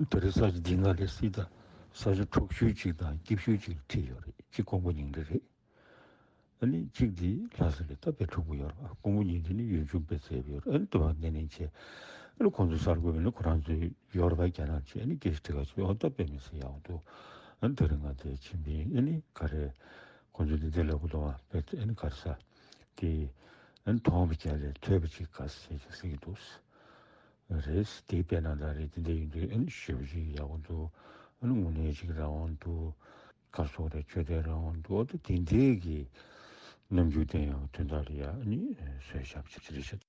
དེ་རིང་ས་ཆ་འདི་ནང་ལས་སྲིད་དང་ས་ཆ་འཕྲོག་ཤུལ་ཅིག་དང་སྐྱིད་ཤུལ་ཅིག་ཁྲིད་ཡོད་རེད། གཅིག་ཀོང་པོ་ཉིང་ཁྲི་རེད། ཨ་ནི་གཅིག་འདི་ལྷ་ས་རེད། ད་དཔེ་འཁྲུག་པོ་ཡོད་རེད་པ། ཀོང་པོ་ཉིང་ཁྲི་ནི་ཡུལ་ལྗོངས་དཔེ་མཛེས་པོ་ཡོད་རེད། ཨ་ནི་དུ་བ་ནན་ནན་བྱས། ཨ་ནི་ཁོང་ཚོ་གསར་འགོད་པ་ནི་ཁོ་རང་ཚོའི་ཡོད་རེད་པ། རྒྱ་ནག་ཅིག་ཨ་ནི་སྐད་ཆ་དྲི་ག་ཅིག་འོ་ད་དཔེ་མི་སྲིད་ཡག་འདུག་ཨ་ནི་དེ་རིང་ང་དེ་ཕྱིན་པས་ཨ་ནི་ག་རེ། ཁོང་ཚོ་འདི་འདྲ་ལབ་གི་འདུག་ཨ། དཔེ་ཨ་ནི་ག་རེ་ཟ། དེ་ཨ་ནི་མཐོང་བ་རྒྱ་ལས་ཐོས་པ་ཅིག་དགའ་ས་ཟེར་ཅིག་ཟེར་གྱི་འདུག་རེད། དེ་དཔེར་ན་ད་རེས་དེ་འདྲ་ཡིན་དུས་ཨ་ནི་ཞེ་པོ་ཅིག་ཡག་པོ་འདུག་ཨ་ནི་དངོས་གནས་ཅིག་རང་དབང་འདུག་ག་སོགས་རེད། ཆོས་དད་རང་དབང་འདུག་ཨ་ད་དེ་འདྲའི་གི་རྣམ་འགྱུར་བསྟན་ཡག་དོན་དག་ལ་ཡ་ཨ་ནི་བཟོས་བཞག་པ་ཅིག་རེད་ཤག་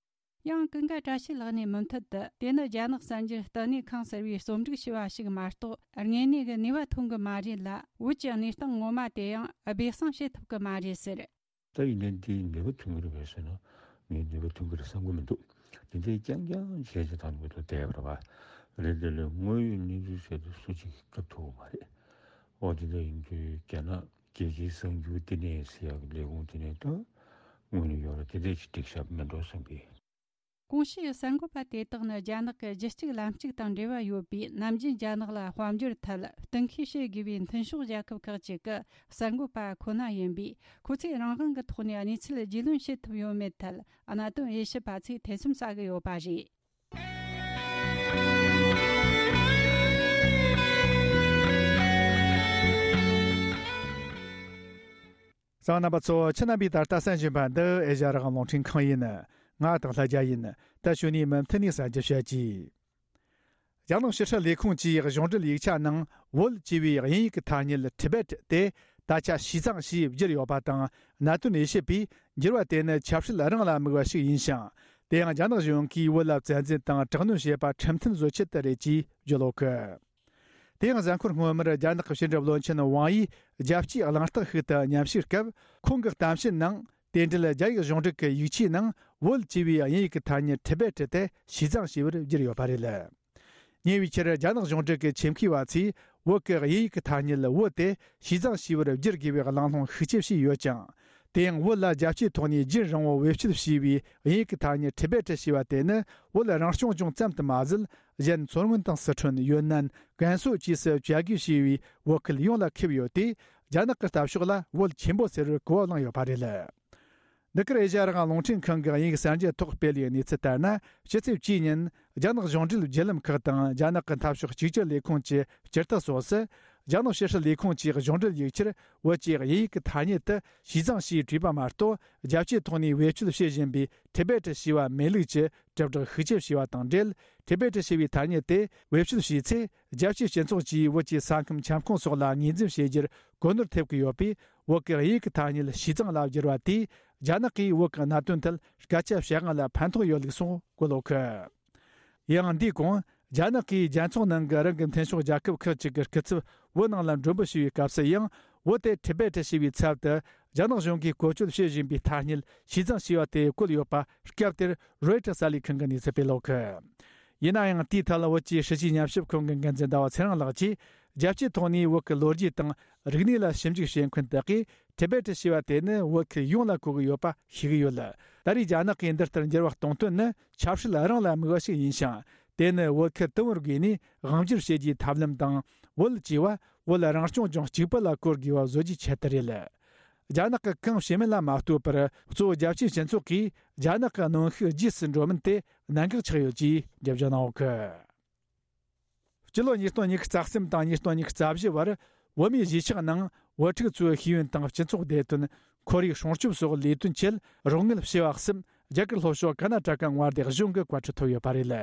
ཡང་ཀུན་དགའ་བཀྲ་ཤིས་ལགས་ནས་མུ་མཐུད་དུ། དེ་ནི་རྒྱ་ནག་གསར་འགྱུར་བསྟི་གནས་ཁང་ཟེར་བས་རྩོམ་སྒྲིག་བྱས་པ་ཞིག་མ་གཏོགས། དངོས་གནས་ཀྱི་ནུས་པ་ཐོན་གྱི་མ་རེད་ལ། བོད་ཀྱི་གནས་སྟངས་ངོ་མ་དེ་ཡང་སྦས་གསང་བྱེད་ཐུབ་ཀྱི་མ་རེད་ཟེར། ད་ཡིན་ནའི་འདིའི་ནུས་པ་ཐོན་གྱི་རེད་པས་ཟེར་ན། ངས་ནུས་པ་ཐོན་གྱི་རེད་བསམ་གྱི་མི་འདུག་འདི་འདྲའི་རྐྱང་རྐྱང་བྱས་བྱས་བཏང་དགོས་དོན་བསྡད་པ་རེད་པ། རེད་དེ་ལས་དངོས་ཡོད་གནས་ཚུལ་ཟེར་དུས་སུ་གཅིག་སྐབས་ཐུབ་ཀྱི་མ་རེད། འོ་དེ་འདྲ་ཡིན་དུས་རྒྱ་ནག་རྒྱལ་སྤྱིའི་གསར་འགྱུར་བསྟི་གནས་ཟེར་ཡག་གི་ལས་ཁུངས་དེ་ནས་ད་དངོས་གནས་ཡོད་རེད། དེ་འདྲ་ཅིག་སྒྲིག་ཤག་མེད་འགྲོ་བསམ་གི། གོང་ཞུས་གསར་འགོད་པ་དེ་དག་ནི་རྒྱ་ནག་གི་གཞི་གཅིག་ལམ་གཅིག་དང་འབྲེལ་བ་ཡོད་པའི། ནམ་རྒྱུན་རྒྱ་ནག་ལ་དཔལ་འབྱོར་ཐད་གཏན་འཁེལ་བྱེད་དགོས་པའི་མཐུན་ཕྱོགས་རྒྱལ་ཁབ་ཁག་ཅིག་གི་གསར་འགོད་པ་ཁོ་ན་ཡིན་པས། ཁོ་ཚོས་རང་དབང་གི་ཐོག་ནས་གནས་ཚུལ་རྒྱུས་ལོན་བྱེད་ཐུབ་ཡོད་མེད་ཐད་གནད་དོན་དབྱེ་ཞིབ་པ་ཚོས་ཐེ་ཚོམ་ཟ་གི་ཡོད་པ་རེད། གསན་མཁན་རྣམ་པ་ཚོ། ཁྱེད་རྣམ་པས་ད་ལྟ་གསན་བཞིན་པ་འདི་ཨེ་ཤ་ཡ་རང་དབང་རླུང་འཕྲིན་ཁང་ཡིན། ང་དང་ལྷ་རྒྱལ་ཡིན། ད་གཞུག་ནས་མུ་མཐུད་ནས་གསན་རྒྱུ་བྱེད་ཀྱིས། རྒྱ་ནག་ཕྱི་སྲིད་ལས་ཁུངས་ཀྱིས་གཞུང་འབྲེལ་ཡིག་ཆ་ནང་བོད་ཅེས་པའི་དབྱིན་ཡིག་གི་ཐ་སྙད་Tibet་དེ་ད་ཆ་Xizang་ཞེས་བསྒྱུར་ཡོད་པ་དང་། གནད་དོན་དབྱེ་ཞིབ་པས་འགྱུར་བ་དེ་ནི་ཆབ་སྲིད་རང་ལ་དམིགས་པ་ཞིག་ཡིན་ཞིང་། དེ་ཡང་རྒྱ་ནག་གཞུང་གིས་བོད་ལ་བཙན་འཛུལ་དང་དྲག་གནོན་བྱས་པ་ཁྲིམས་མཐུན་བཟོ་ཆེད་དུ་རེད་ཅེས་བརྗོད་ཡོད་གི། དེ་ཡང་གཟའ་འཁོར་སྔོན་མར་རྒྱ་ནག་གི་ཕྱི་འབྲེལ་བློན་ཆེན་ཝང་ཡིས་རྒྱལ་སྤྱིའི་གླེང་སྟེགས་ཤིག་ཏུ་མཉམ་ཞུགས་སྐབས། ཁོང་གི་གཏམ་བཤད་ནང་དེ་འབྲེལ་རྒྱ་ཡིག་གཞུང་འབྲེལ་གྱི་ཡིག་ཆའི་ནང་བོད་ཅེས་པའི་དབྱིན་ཡིག་གི་ཐ་སྙད་Tibet་དེ་Xizang་ཞེས་པར་བསྒྱུར་ཡོད་པ་རེད། ཉེ་བའི་ཆར་རྒྱ་ནག་གཞུང་འབྲེལ་གྱི་ཆེད་མཁས་པ་ཚོས་བོད་ཀྱི་དབྱིན་ཡིག་གི་ཐ་སྙད་བོད་དེ་ཞི་ཙང་ཞེས་པར་བསྒྱུར་དགོས་པའི་གླེང་སློང་ཤུགས་ཆེ་བྱས་ཡོད་ཅིང་། དེ་ཡང་བོད་ལ་རྒྱལ་སྤྱིའི་ཐོག་ནས་རྒྱུན་རིང་པོ་བེད་སྤྱོད་བྱས་པའི་དབྱིན་ཡིག་གི་ཐ་སྙད་ཊི་བེ་ཊི་ཞེས་པ་དེ་ནི་བོད་རང་སྐྱོང་ལྗོངས་ཙམ་དུ་མ་ཟད། གཞན་མཚོ་སྔོན་དང་སི་ཁྲོན། ཡོན་ནན། ཀན་སུའུ་བཅས་སུ་བྱ་དགོས་ཞེས་པའི་བོད་ཁུལ་ཡོངས་ལ་ཁེབས་ཡོད་དེ། རྒྱ་ནག་གི་ལྟ་ཕྱོགས་ལ་བོད་ཆེན་པོ་ཟེར་བར་གོ་བ་བླངས་ཡོད་པ་རེད། འདི་གར་ཨེ་ཤ་ཡ་རང་དབང་རླུང་འཕྲིན་ཁང་གི་དབྱིན་ཡིག་གསར་འགྱུར་ཐོག་སྤེལ་བའི་གནས་ཚུལ་ལྟར་ན། ཕྱི་ཚེས་བཅུའི་ཉིན་རྒྱ་ནག་གཞུང་འབྲེལ་བརྒྱུད་ལམ་ཁག་དང་རྒྱ་ནག་གི་འཐབ་ཕྱོགས་གཅིག་གྱུར་ལས་ཁུངས་ཀྱི་སྤྱི་རྟགས་སོགས་སུ། རྒྱ་ནག་ཕྱི་སྲིད་ལས་ཁུངས་ཀྱི་གཞུང་འབྲེལ་ཡིག་ཆར་བོད་ཀྱི་དབྱིན་ཡིག་གི་ཐ་སྙད་དུ་ཞི་ཙང་ཞེས་བྲིས་པ་མ་གཏོགས། རྒྱལ་སྤྱིའི་ཐོག་ནས་བེད་སྤྱོད་བྱེད་བཞིན་པའི་ཊི་བེ་ཊི་ཞེས་པ་མེད་ལུགས་ཀྱི་དྲིལ་བསྒྲགས་ཤུགས་ཆེ་བྱས་པ་དང་འབྲེལ། ཊི་བེ་ཊི་ཞེས་པའི་ཐ་སྙད་དེ་བེད་སྤྱོད་བྱས་ཚེ། རྒྱལ་སྤྱིའི་སྤྱི་ཚོགས་ཀྱིས་བོད་ཀྱི་ས་ཁམས་ཁྱབ་ཁོངས་སོགས་ལ་ངོས་འཛིན་བྱེད་རྒྱུར་གོ་ནོར་ཐེབས་ཀྱི་ཡོད་པས། བོད་ཀྱི་དབྱིན་ཡིག་གི་ཐ་སྙད་ཞི་ཙང་ལ་བསྒྱུར་བ་དེས། རྒྱ་ནག་གིས་བོད་ཀྱི་གནད་དོན་ཐད་སྐད་ཆ་བཤད་དབང་ལ་ཕན་ཐོགས་ཡོད་ལུགས་སོགས་བཀོད་ཡོད་གི། ཡང་འདིའི་གོང་། རྒྱ་ནག་གིས་རྒྱལ་ཚོགས་ནང་གི་རང་གི་མཐུན་ཕྱོགས་རྒྱལ་ཁབ་ཁག་ཅིག་གི་སྐུ་ཚབ་བོད་ནང་ལ་མགྲོན་འབོད་བྱས་པའི་སྐབས་སུ་ཡང་། བོད་དེ་ཊི་བེ་ཊི་ཞེས་པའི་ཚབ་ཏུ་རྒྱ་ནག་གཞུང་གིས་བཀོལ་སྤྱོད་བྱེད་བཞིན་པའི་ཐ་སྙད་ཞི་ཙང་ཞེས་པ་དེ་བཀོད་ཡོད་པ་སྐབས་དེར་རོའི་ཊར་གསར་ལས་ཁང་གིས་གནས་ཚུལ་སྤེལ་ཡོད་གི། ཡིན་ན་ཡང་། དེའི་ཐད་ལ་བོད་ཀྱི་སྲིད་བྱུས་ཉམས་ཞིབ་ཁང་གི་འགན་འཛིན་ཟླ་བ་ཚེ་རིང་ལགས་ཀྱིས། རྒྱལ་སྤྱིའི་ཐོག་ནས་བོད་ཀྱི་ལོ་རྒྱུས་དང་རིག་གནས་ལ་ཞིབ་འཇུག་བྱེད་མཁན་དག་གིས། ཊི་བེ་ཊི་ཞེས་པ་དེ་ནི་བོད་ཁུལ་ཡོངས་ལ་གོ་གི་ཡོད་པ་ཤེས་ཀྱི་ཡོད། ད་རེས་རྒྱ་ནག་གིས་འདི་ལྟར་འགྱུར་བ་གཏོང་དོན་ནི། ཆབ་སྲིད་རང་ལ་དམིགས་པ་ཞིག་ཡིན་ཞིང་། དེ་ནི་བོད་ཁུལ་དུམ་བུར་བགོས་ནས་དབང་བསྒྱུར་བྱེད་རྒྱུའི་ཐབས་ལམ་དང་། བོད་ཅེས་པ་བོད་རང་སྐྱོང་ལྗོངས་གཅིག་པུ་ལ་གོ་དགོས་པ་བཟོ་རྒྱུའི་ཆེད་དུ་རེད། རྒྱ་ནག་གི་གང་བྱེད་མིན་ལ་མ་ལྟོས་པར། གཙོ་བོ་རྒྱལ་སྤྱིའི་སྤྱི་ཚོགས་ཀྱིས་རྒྱ་ནག་གི་གནོན་ཤུགས་རྗེས་སུ་འགྲོ་མིན་དེ་གནད་འགག་ཆགས་ཡོད་ཅེས་འགྲེལ་བརྗོད་གནང་ཡོད་གི། སྤྱི་ལོ་ཉིས་སྟོང་ཉི་ཤུ་རྩ་གསུམ་དང་ཉིས་སྟོང་ཉི་ཤུ་རྩ་བཞི་བར། བོད་མིའི་གཞིས་ཆགས་ནང་བོད་ཕྲུག་ཚོའི་ཤེས་ཡོན་དང་སྤྱི་ཚོགས་བདེ་དོན། ཁོར་ཡུག་སྲུང་སྐྱོབ་སོགས་ལས་དོན་ཆེད་རོགས་དངུལ་བྱེ་བ་གསུམ་རྒྱ་གར་ལྷོ་ཕྱོགས་ཀར་ན་ཊ་ཀ་མངའ་སྡེ་གཞུང་གི་བཀའ་འཁྲོལ་ཐོབ་ཡོད་པ་རེད།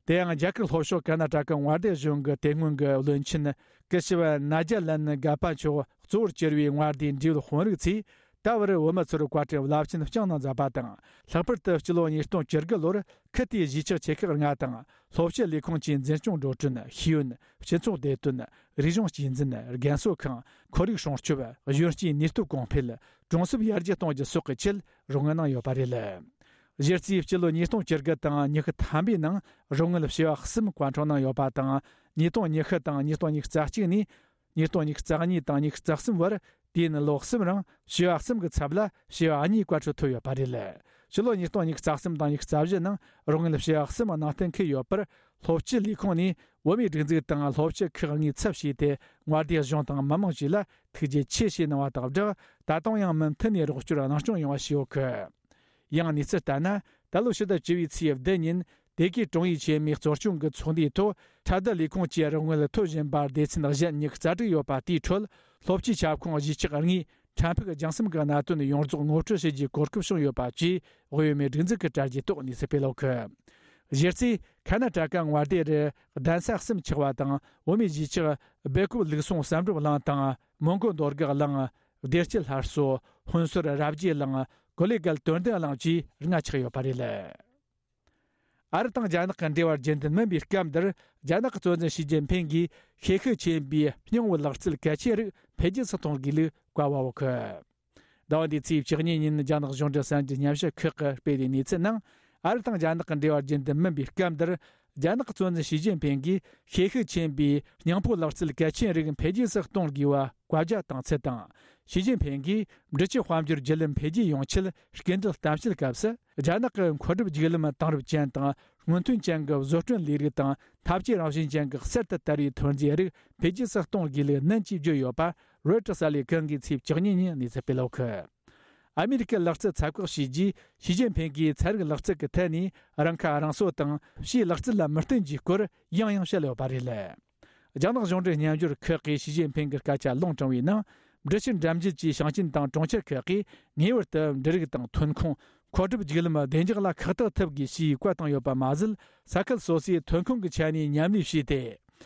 དེ་ཡང་རྒྱ་གར་ལྷོ་ཕྱོགས་ཀར་ན་ཊ་ཀ་མངའ་སྡེ་གཞུང་གི་དེ་སྔོན་གྱི་བློན་ཆེན་སྐུ་ཞབས་ནཱ་ཇཱ་ལན་གྷ་པ་མཆོག་གཙོ་བོར་གྱུར་བའི་མངའ་སྡེའི་འབྲེལ་ཡོད་དཔོན་རིགས་ཚོས། ད་བར་བོད་མི་ཚོར་བཀའ་དྲིན་རླབས་ཆེན་བསྐྱངས་གནང་མཛད་པ་དང་། ལྷག་པར་དུ་སྤྱི་ལོ་ཉིས་སྟོང་བཅུ་དགུ་ལོར་ཁུལ་དེའི་གཞིས་ཆགས་ཆེ་ཁག་ལྔ་དང་། སློབ་སྤྱི་ལས་ཁུངས་ཀྱི་འཛིན་སྐྱོང་འགྲོ་གྲོན། ཤེས་ཡོན། སྤྱི་ཚོགས་བདེ་དོན། རིག་གཞུང་གཅེས་འཛིན། རྒན་གསོ་ཁང་། ཁོར་ཡུག་སྲུང་སྐྱོབ། གཞོན་སྐྱེས་ནུས་སྟོབས་གོང་འཕེལ། གྲོང་གསེབ་ཡར་རྒྱས་གཏོང་རྒྱུ་སོགས་ཀྱི་ཆེད་རོགས་དངུལ་གནང་ཡོད་པ་རེད། གཞི་རྩའི་སྤྱི་ལོ་ཉིས་སྟོང་བཅུ་དགུ་དང་ཉི་ཤུ་ཐམ་པའི་ནང་རོགས་དངུལ་བྱེ་བ་གསུམ་བཀའ་འཁྲོལ་གནང་ཡོད་པ་དང་། ཉིས་སྟོང་ཉི་ཤུ་དང་ཉིས་སྟོང་ཉི་ཤུ་རྩ་གཅིག་ནས། ཉིས་སྟོང་ཉི་ཤུ་རྩ་གཉིས་དང་ཉི་ཤུ་རྩ་གསུམ་བར། དུས་ཡུན་ལོ་གསུམ་རིང་བྱེ་བ་གསུམ་གྱི་ཚབ་ལ་བྱེ་བ་གཉིས་བཀའ་འཁྲོལ་ཐོབ་ཡོད་པ་རེད། ཕྱི་ལོ་ཉིས་སྟོང་ཉི་ཤུ་རྩ་གསུམ་དང་ཉི་ཤུ་རྩ་བཞི་ནང་རོགས་དངུལ་བྱེ་བ་གསུམ་ནང་བསྟན་འཁུལ་ཡོད་པར། སློབ་སྤྱི་ལས་ཁུངས་ནས་བོད་མིའི་སྒྲིག་འཛུགས་དང་སློབ་སྤྱི་ཁག་གཉིས་ཚབ་བྱས་ཏེ། མངའ་སྡེ་གཞུང་དང་མི་མང་བཅས་ལ་ཐུགས་རྗེ་ཆེ་ཞེས་གནང་བ་དང་སྦྲགས། ད་དུང་ཡང་མུ་མཐུད་ནས་རོགས་སྐྱོར་གནང་སྐྱོང་ཡོང་བ་ཞུ་ཡོད་གི། ཡང་གནས་ཚུལ་ལྟར་ན། ད་ལོ་ཕྱི་ཟླ་བཅུ་བའི་ཚེས་བདུན་ཉིན། དེ་གའི་དྲུང་ཡིག་ཆེན་མོའི་གཙོ་སྐྱོང་གི་ཚོགས་འདུའི་ཐོག་ཁྲལ་བསྡུ་ལས་ཁུངས་ཀྱིས་རོགས་དངུལ་ཐོབ་བཞིན་པ་སྡེ་ཚན་གཞན་ཉི་ཤུ་རྩ་དྲུག་ཡོད་པ་དེའི་ཁྲོད། སློབ་སྤྱིའི་ཁྱབ་ཁོངས་གཞིས་ཆགས་ལྔའི་ཕྲན་ཕུགས་རྒྱང་གསུམ་གྱི་གནད་དོན་ཡོངས་རྫོགས་ངོ་སྤྲོད་བྱེད་རྒྱུའི་གོ་སྐབས་བྱུང་ཡོད་པ་བཅས། དབུས་བོད་མིའི་སྒྲིག་འཛུགས་ཀྱི་དྲ་རྒྱའི་ཐོག་གནས་ཚུལ་སྤེལ་ཡོད་གི། གཞི་རྩའི་ཁ་ན་ཊ་ཀ་མངའ་སྡེ་རུ་གདན་ས་གསུམ་ཆགས་པ་དང་། བོད་མིའི་གཞིས་ཆགས་སྦེལ་ཀོབ་ལུགས་ཟུང་བསམ་གྲུབ་གླིང་དང་། མོན་གོ་འདོད་རྒུ་གླིང་། བདེ་སྐྱིད་སླར་གསོ། ཧོན་སོར་རབ་རྒྱས་གླིང་། ཀོ་ལེ་གལ་དོན་ལྡན་གླིང་བཅས་ལྔ་ཆགས་ཡོད་པ་རེད། ཨ་རི་དང་རྒྱ་ནག་གི་འབྲེལ་བ་རྒྱུན་ལྡན་མིན་པའི་སྐབས་འདིར། རྒྱ་ནག་གི་གཙོ་འཛིན་ཞི་ཅིན་ཕིང་གིས་ཤེས་ཤུགས་ཆེན་པོས་སྙིང་བོའི་ལག་རྩལ་གལ་ཆེན་རིགས་འཕེལ་རྒྱས་སུ་གཏོང་དགོས་ལུགས་བཀའ་ཕབ་ཡོད་གི། ཟླ་བ་འདིའི་ཚེས་བཅུ་གཉིས་ཉིན་རྒྱ་ནག་གཞུང་འབྲེལ་གསར་འགྱུར་ཉམས་ཞིབ་ཁག་གིས་སྤེལ་བའི་གནས་ཚུལ་ནང་། ཨ་རི་དང་རྒྱ་ནག་གི་འབྲེལ་བ་རྒྱུན་ལྡན་མིན་པའི་སྐབས་འདིར། རྒྱ་ནག་གི་གཙོ་འཛིན་ཞི་ཅིན་ཕིང་གིས་ཤེས་ཤུགས་ཆེན་པོས་སྙིང་བོའི་ལག་རྩལ་གལ་ཆེན་རིགས་འཕེལ་རྒྱས་སུ་གཏོང་དགོས་པ་བཀའ་རྒྱ་བཏང་ཚུལ་དང་། ཞི་ཅིན་ཕིང་གིས་འབྲུག་ཆུ་དཔལ་འབྱོར་བརྒྱུད་ལམ་འཕེལ་རྒྱས་ཡོང་ཆེད་སྐུལ་འདེད་གཏམ་བཤད་སྐབས་སུ། རྒྱ་ནག་གི་མཁོ་སྒྲུབ་བརྒྱུད་ལམ་དེང་རབས་ཅན་དང་སྔོན་ཐོན་ཅན་གྱི་བཟོ་སྐྲུན་ལས་རིགས་དང་འཐབ་ཇུས་རང་བཞིན་ཅན་གྱི་གསར་དུ་དར་བའི་ཐོན་རྫས་རིགས་འཕེལ་རྒྱས་སུ་གཏོང་དགོས་ལུགས་ནན་གྱིས་བརྗོད་ཡོད་པ། རོའི་ཊར་གསར་ལས་ཁང་གིས་ཚེས་བཅུ་གཉིས་ཉིན་གནས་ཚུལ་སྤེལ་ཡོད་གི། ཨ་མེ་རི་ཀའི་ལག་རྩལ་ཚབ་བཀག་བྱས་རྗེས། ཞི་ཅིན་ཕིང་གིས་ཚན་རིག་ལག་རྩལ་གྱི་ཐད་ནས་རང་ཁ་རང་གསོ་དང་ཕྱིའི་ལག་རྩལ་ལ་མི་བརྟེན་རྒྱུའི་སྐོར་ཡང་ཡང་བཤད་ཡོད་པ་རེད། རྒྱ་ནག་གཞུང་འབྲེལ་སྙན་སྒྲོན་ཁག་གིས་ཞི་ཅིན་ཕིང་གི་སྐད་ཆ་ལུང་དྲངས་པའི་ནང་། འབྲུག་ཆུ་འགྲམ་རྒྱུད་ཀྱི་ཞིང་ཆེན་དང་གྲོང་ཁྱེར་ཁག་གིས་ངེས་པར་དུ་འབྲུ་རིགས་དང་ཐོན་ཁུངས། མཁོ་སྒྲུབ་བརྒྱུད་ལམ་བདེ་འཇགས་ལ་ཁག་ཐེག་ཐུབ་དགོས་ཞེས་བཀའ་བཏང་ཡོད་པ་མ་ཟད། ས་ཁུལ་སོ་སོའི་ཐོན་ཁུངས་ཀྱི་ཆ་ནས་མཉམ་ལས་བྱས་ཏེ།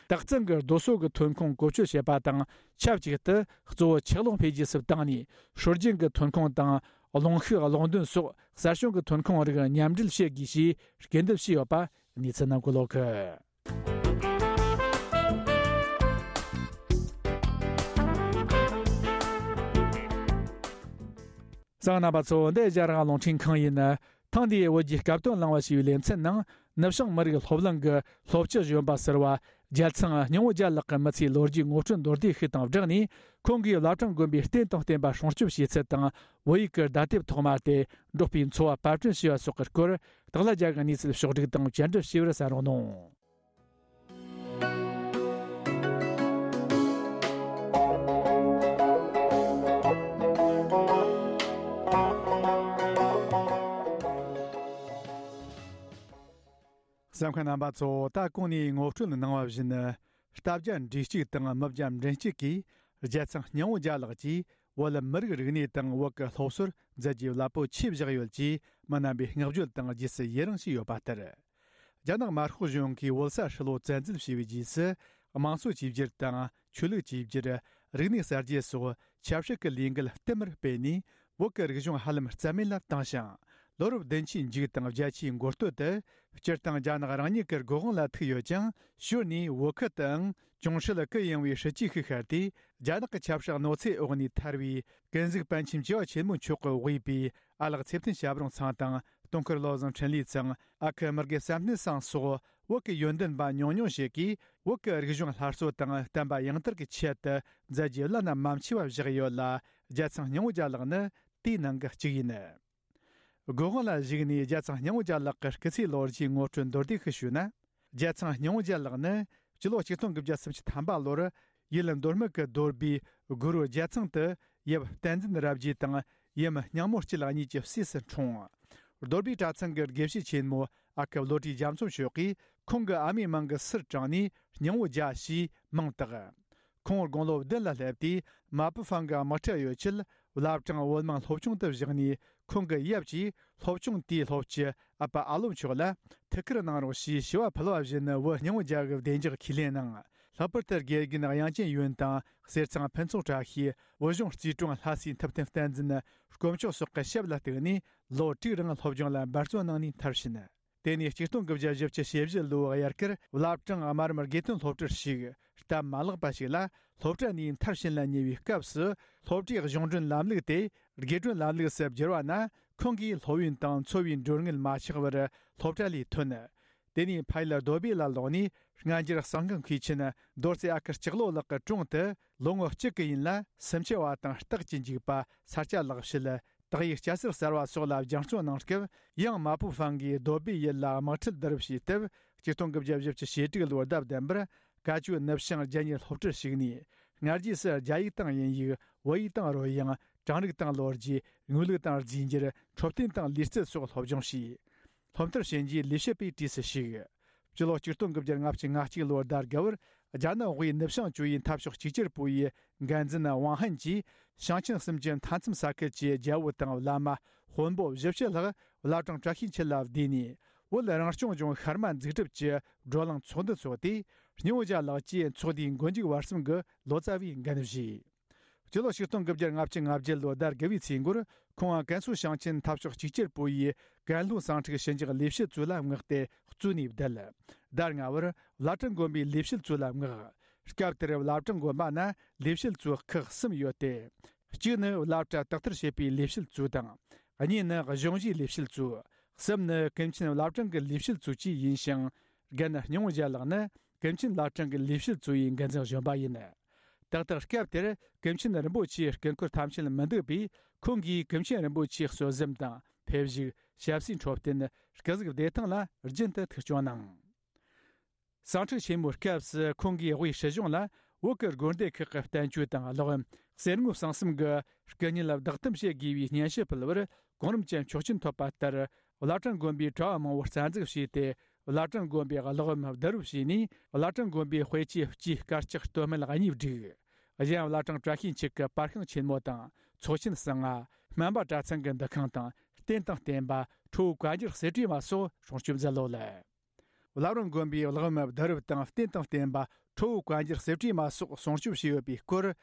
སྟག་ཚང་གི་རྡོ་སོལ་གྱི་ཐོན་ཁུངས་བཀོལ་སྤྱོད་བྱེད་པ་དང་། ཆབས་ཅིག་ཏུ་གཙོ་བོ་ཆུ་གློག་འཕེལ་རྒྱས་སུ་བཏང་ནས། སྲོལ་རྒྱུན་གྱི་ཐོན་ཁུངས་དང་རླུང་ཤུགས་གློག་འདོན་སོགས་གསར་བྱུང་གི་ཐོན་ཁུངས་རིགས་མཉམ་འབྲེལ་བྱེད་དགོས་ཞེས་སྐུལ་འདེད་བྱས་ཡོད་པ་གནས་ཚུལ་ནང་འཁོད་ཡོད་གི། གསན་མཁན་རྣམ་པ་ཚོ། འདི་ཨེ་ཤ་ཡ་རང་དབང་རླུང་འཕྲིན་ཁང་ཡིན། ཐེངས་འདིའི་བོད་ཀྱི་སྐབས་དོན་གླེང་བ་ཞེས་པའི་ལེ་ཚན་ནང་། ནུབ་བྱང་མི་རིགས་སློབ་གླིང་གི་སློབ་སྤྱི་གཞོན་པ་ཟུར་པ་རྒྱལ་ཚང་སྙིང་བོ་རྒྱལ་ལགས་ཀྱི་མི་ཚེའི་ལོ་རྒྱུས་ངོ་སྤྲོད་མདོར་བསྡུས་ཤིག་དང་སྦྲགས་ནས། ཁོང་གིས་བླ་བྲང་དགོན་པའི་རྟེན་དང་བརྟེན་པ་སྲུང་སྐྱོབ་བྱེད་ཚུལ་དང་། བོད་ཡིག་གི་བརྡ་དེབ་ཐོག་མ་སྟེ་འབྲོག་པའི་འཚོ་བ་པར་སྐྲུན་བྱས་པ་སོགས་ཀྱི་སྐོར། སྟག་ལྷ་རྒྱལ་གྱི་གནས་ཚུལ་ཕྱོགས་བསྒྲིགས་དང་བཅར་འདྲི་ཞུས་པར་གསན་རོགས་གནང་། གསན་མཁན་རྣམ་པ་ཚོ། ད་གོང་ནས་ངོ་སྤྲོད་གནང་བ་བཞིན། ལྟ་བརྒྱ་འབྲུ་གཅིག་དང་མི་བརྒྱ་མགྲིན་གཅིག་གིས་རྒྱལ་ཚང་སྙིང་བོ་རྒྱལ་ལགས་ཀྱིས་བོད་མི་རིགས་རིག་གནས་དང་བོད་ཀྱི་སློབ་གསོར་མཛད་རྗེས་རླབས་པོ་ཆེ་བཞག་ཡོད་ཅེས་མི་རྣམ་པས་བསྔགས་བརྗོད་དང་རྗེས་སུ་ཡི་རངས་བྱས་ཡོད་པ་ལྟར། རྒྱ་ནག་དམར་ཤོག་གཞུང་གིས་བོད་ས་ཧྲིལ་པོ་བཙན་འཛུལ་བྱས་པའི་རྗེས་སུ། དམངས་གཙོ་བཅོས་བསྒྱུར་དང་ཆོས་ལུགས་བཅོས་བསྒྱུར། རིག་གནས་གསར་བརྗེ་སོགས་ཆབ་སྲིད་ཀྱི་ལས་འགུལ་བསྟུད་མར་སྤེལ་ནས། བོད་ཀྱི་རིག་གཞུང་ཧ་ལམ་རྩ་མེད་ལ་བཏང་ཞིང་། ལོ་རབས་བདུན་ཅུའི་མཇུག་དང་བརྒྱད་ཅུའི་འགོ་སྟོད་དུ། སྤྱིར་བཏང་རྒྱ་ནག་རང་ཉིད་ཀྱི་སྒོ་དབང་ལ་ཐུག་ཡོད་ཅིང་། ཞོར་ནས་བོད་ཁུལ་དུའང་གྱོང་ཧྲུལ་གུ་ཡངས་པའི་སྲིད་ཇུས་ཤིག་ཤར་ཏེ། རྒྱ་ནག་གི་ཆབ་སྲིད་གནོད་འཚེའི་འོག་ནས་ཐར་བའི་ཀུན་གཟིགས་པཎ་ཆེན་བཅུ་པ་ཆེན་མོ་མཆོག་གིས་དབུས་པའི་ཨ་ལགས་ཚེ་བརྟན་ཞབས་དྲུང་ཚང་དང་། སྟོང་འཁོར་བློ་བཟང་འཕྲིན་ལས་ཚང་། ཨ་ཁུ་དམར་དགེ་བསམ་གཏན་ཚང་སོགས་བོད་ཀྱི་ཡོན་ཏན་པ་ཉུང་ཉུང་ཞིག་གིས། བོད་ཀྱི་རིག་གཞུང་སླར་གསོ་དང་བསྟན་པ་ཡང་དར་གྱི་ཆེད་དུ་མཛད་རྗེས་བླ་ན་མ་མཆིས་པ་བཞག་ཡོད་ལ། རྒྱལ་ཚང་སྙིང་བོ་རྒྱལ་ལགས་ནི་དེའི་ནང་གི་གཅིག་ཡིན། སྒོ་དབང་ལ་གཞིགས་ནས་རྒྱལ་ཚང་སྙིང་བོ་རྒྱལ་ལགས་ཀྱི་སྐུ་ཚེའི་ལོ་རྒྱུས་ངོ་སྤྲོད་མདོར་བསྡུས་ཤིག་ཞུས་ན། རྒྱལ་ཚང་སྙིང་བོ་རྒྱལ་ལགས་ནི་སྤྱི་ལོ་ཆིག་སྟོང་དགུ་བརྒྱ་སུམ་ཅུ་ཐམ་པ་ལོར་ཡུལ་མདོ་སྨད་ཀྱི་རྡོ་སྦིས་གུ་རུ་རྒྱལ་ཚང་དུ་ཡབ་བསྟན་འཛིན་རབ་རྒྱས་དང་ཡུམ་སྙིང་མོ་སྐྱིད་གཉིས་ཀྱི་སྲས་སུ་འཁྲུངས། རྡོ་སྦིས་གྲྭ་ཚང་གི་དགེ་བཤེས་ཆེན་མོ་ཨ་ཁུ་བློ་གྲོས་རྒྱ་མཚོ་མཆོག་གིས་ཁོང་གི་ཨ་མའི་མིང་གི་སུར་དྲངས་ནས་སྙིང་བོ་རྒྱལ་ཞེས་མིང་བཏགས། ཁོང་དགུང་ལོ་བདུན་ལ་སླེབས་དུས་མ་པུ་ཧྥང་གི་དམག་ཁྲལ་ཡོད་ཆེད་བླ་བྲང་བོད་དམངས་སློབ་ཆུང་དུ་བཞག་ནས། ཁོང་གི་ཡབ་ཀྱིས་སློབ་ཆུང་དེའི་སློབ་སྤྱི་ཨ་ཕ་ཨ་ལོ་མཆོག་ལ་ཐུགས་ཁུར་གནང་རོགས་ཞེས་ཞུ་བ་ཕུལ་བ་བཞིན། བོད་སྙིང་བོ་རྒྱལ་གྱི་བདེ་འཇགས་ཁས་ལེན་གནང་། ལྷག་པར་དུ་དགེ་རྒན་དབྱངས་ཅན་ཡོན་དང་། གསེར་ཚང་ཕུན་ཚོགས་བཀྲ་ཤིས། བོད་གཞུང་རྩིས་དྲུང་ལྷ་སྲས་ཐུབ་བསྟན་བསྟན་འཛིན། དཀོན་མཆོག་སོགས་ཀྱི་ཞབས་ལ་གཏུགས་ནས། ལོ་དྲུག་རིང་སློབ་སྦྱོང་ལ་འབད་བརྩོན་གནང་ནས་མཐར་ཕྱིན། དེ་ནས་ཆིག་སྟོང་དགུ་བརྒྱ་བཞི་བཅུ་ཞེ་བཞི་ལོའི་དབྱར་ཁར་བླ་བྲང་དམར་དམར་དགེ་ཐོན་སློབ་གྲྭར་ཞུགས། སྟབས་མ་ལེགས་པ་ཞིག་ལ། སློབ་གྲྭ་ནས་མཐར་ཕྱིན་ལ་ཉེ་བའི་སྐབས་སུ། སློབ་གྲྭའི་གཞུང་གྲོན་ལམ་ལུགས་དེ་དགེ་གྲོན་ལམ་ལུགས་སུ་བསྒྱུར་བ་ན། ཁོང་གིས་སློབ་ཡོན་དང་འཚོ་བའི་མགྲོན་དངུལ་མ་ཆག་པར་སློབ་གྲྭ་ལས་ཐོན། དེ་ནས་ཕ་ཡུལ་རྡོ་སྦིས་ལ་ལོག་ནས། སྔ་འགྱུར་གསང་སྔགས་མཁས་ཆེན་རྡོ་རྩེ་ཨ་ཁུ་སྐྱག་ལོ་ལགས་ཀྱི་དྲུང་དུ། ལོ་ངོ་གཅིག་གི་ཡུན་ལ་སུམ་ཅུ་པ་དང་རྟགས་ཀྱི་འཇུག་པ། ས་སྐྱ་ལེགས་བཤད། དག་ཡིག་སྐྱ་སེར་གསར་བ་སོགས་ལ་སྦྱང་བརྩོན་གནང་སྐབས། ཡང་མ་པུ་ཧྥང་གིས་རྡོ་སྦིས་ཡུལ་ལ་དམག་ཁྲལ་བསྡུ་རུབ་བྱས་སྟབས། ཆིག་སྟོང་དགུ་བརྒྱ་བཞི་བཅུ་ཞེ་དྲུག་ལོར་ཟླ་བདུན་པར་བཀའ་བརྒྱུད་ནུབ་བྱང་རྒྱ་གཉིས་སློབ་གྲྭར་ཞུགས་ནས། སྔ་རྗེས་སུ་རྒྱ་ཡིག་དང་དབྱིན་ཡིག་བོད་ཡིག་དང་རོལ་དབྱངས། གྲངས་རིག་དང་ལོ་རྒྱུས། དངོས་ལུགས་དང་རྫས་འགྱུར། འཕྲོད་བསྟེན་དང་ལུས་རྩལ་སོགས་སློབ་སྦྱོང་བྱས། སློབ་མཐར་ཕྱིན་རྗེས་ལས་བྱེད་པའི་གྲས་སུ་ཞུགས། སྤྱི་ལོ་ཆིག་སྟོང་དགུ་བརྒྱ་ལྔ་བཅུ་ང་གཅིག་ལོར་ཟླ་དགུ་པར། རྒྱ་ནག་དབུས་ནུབ་བྱང་ཇོ་ཡི་འཐབ་ཕྱོགས་གཅིག་གྱུར་པུའུ་ཡི་འགན་འཛིན་ཝང་ཧན་གྱིས། ཞིང་ཆེན་གསུམ་གྱི་མཐའ་མཚམས་ས་ཁུལ་གྱི་རྒྱལ་པོ་དང་བླ་མ་དཔོན་པོ་བཞི་བཅུ་ལྷག་བླ་བྲང་བཀྲ་ཤིས་འཁྱིལ་ལ་བསྡུས་ནས། བོད་རང་སྐྱོང་ལྗོངས་ཤར་མ་འཛུགས་སྐྲུན་གྱི་བགྲོ་གླེང་ཚོགས་འདུ་འཚོགས་ཏེ། སྙིང་བོ་རྒྱལ་ལགས་ཀྱིས་ཚོགས་འདུའི་མགོ་མཇུག་བར་གསུམ་གྱི་ལོ་ཙཱ་བའི་འགན་བཞེས། སྤྱི་ལོ་ཆིག་སྟོང་དགུ་བརྒྱ་ལྔ་བཅུ་ང་བརྒྱད་ལོའི་ཟླ་དགུ་བའི་ཚེས་འགོར། ཁོང་ཀན་སུའུ་ཞིང་ཆེན་འཐབ་ཕྱོགས་གཅིག་གྱུར་པུའུ་ཡི་ཀན་ལྷོའི་ཟིང་འཁྲུག་ཞི་འཇགས་ལས་བྱེད་ཙུའུ་ལ་མངགས་ཏེ་གཙོས་ནས་བསྡད། ཟླ་ལྔ་པར་བླ་བྲང་དགོན་པའི་ལས་བྱེད་ཙུའུ་ལ་མངགས། སྐབས་དེར་བླ་བྲང་དགོན་པ་ན་ལས་བྱེད་ཙུའུ་ཁག་གསུམ་ཡོད་དེ། གཅིག་ནི་བླ་གྲྭ་དག་ཐེར་བྱེད་པའི་ལས་བྱེད་ཙུའུ་དང་། གཉིས་ནི་གཞུང་གཞིས་ལས་བྱེད་ཙུའུ། གསུམ་ནི་ཀུན་མཁྱེན་བླ་བྲང་གི་ལས་བྱེད་ཙུའུ་བཅས་ཡིན་ཞིང་། རྒན་སྙིང་བོ་རྒྱལ་ལགས་ནི་ཀུན་མཁྱེན་བླ་བྲང་གི་ལས་བྱེད་ཙུའུ་ཡི་འགན་འཛིན་གཞོན་པ་ཡིན། ཏག་ཏག་སྐབས་དེར་ཀུན་མཁྱེན་རིན་པོ་ཆེའི་སྐུ་འཁོར་ཐམས་ཅད་མི་འདུག་པས། ཁོང་གིས་ཀུན་མཁྱེན་རིན་པོ་ཆེའི་གསོལ་གཟིམ་དང་། ཕེབས་བཞུགས། ཞབས་སའི་འཕྲོད་བསྟེན། སྐུ་གཟུགས་བདེ་ཐང་ལ་རྒྱུན་དུ་ཐུགས་སྐྱོང་གནང་། ཟིང་འཁྲུག་ཆེན་མོའི་སྐབས་སུ་ཁོང་གིས་དབུས་སྲིད་གཞུང་ལ་བོད་ཀྱི་དགོན་སྡེ་ཁག་གི་བསྟན་བཅོས་དང་ཀློག་ཡམ། གསེར་དངུལ་གསང་གསུམ་གྱི་སྐུ་བརྙན་བདག་གཏམ་བྱེད་དགོས་པའི་སྙན་ཞུ་ཕུལ་བར་གོང་རིམ་གྱི་ཆོག་མཆན་ཐོབ་པ་ལྟར། བླ་བྲང་དགོན་པའི་གྲྭ་བ་མང་པོ་རྩ་འཛུགས་བྱས་ཏེ། བླ་བྲང་དགོན་པའི་ཀློག་ཡམ་བསྡུ་རུབ་བྱས་ནས། བླ་བྲང་དགོན་པའི་དཔེ་ཆའི་སྤྱིའི་དཀར་ཆག་སྟོད་སྨད་གཉིས་བསྒྲིགས། གཞན་བླ་བྲང་བཀྲ་ཤིས་འཁྱིལ་གྱི་པར་ཤིང་ཆེན་མོ་དང་། ཚོགས་ཆེན་གསང་སྔགས། སྨན་པ་གྲྭ་ཚང་གི་འདུ་ཁང་དང་། རྟེན་དང་བརྟེན་པ། ཁྲོ་བོའི་བཀའ་འགྱུར་གསེར་བྲིས་མ་སོགས་སྲུང་སྐྱོབ་མཛད་ལོ་ལ། བླ་བྲང་དགོན་པའི་ཀློག་ཡམ་བསྡུ་རུབ་དང་། རྟེན་དང་བརྟེན་པ། ཁྲོ་བོའི་བཀའ་འགྱུར་གསེར་བྲིས་མ་སོགས་སྲུང་སྐྱོབ་བྱས་ཡོད་པའི་སྐོར།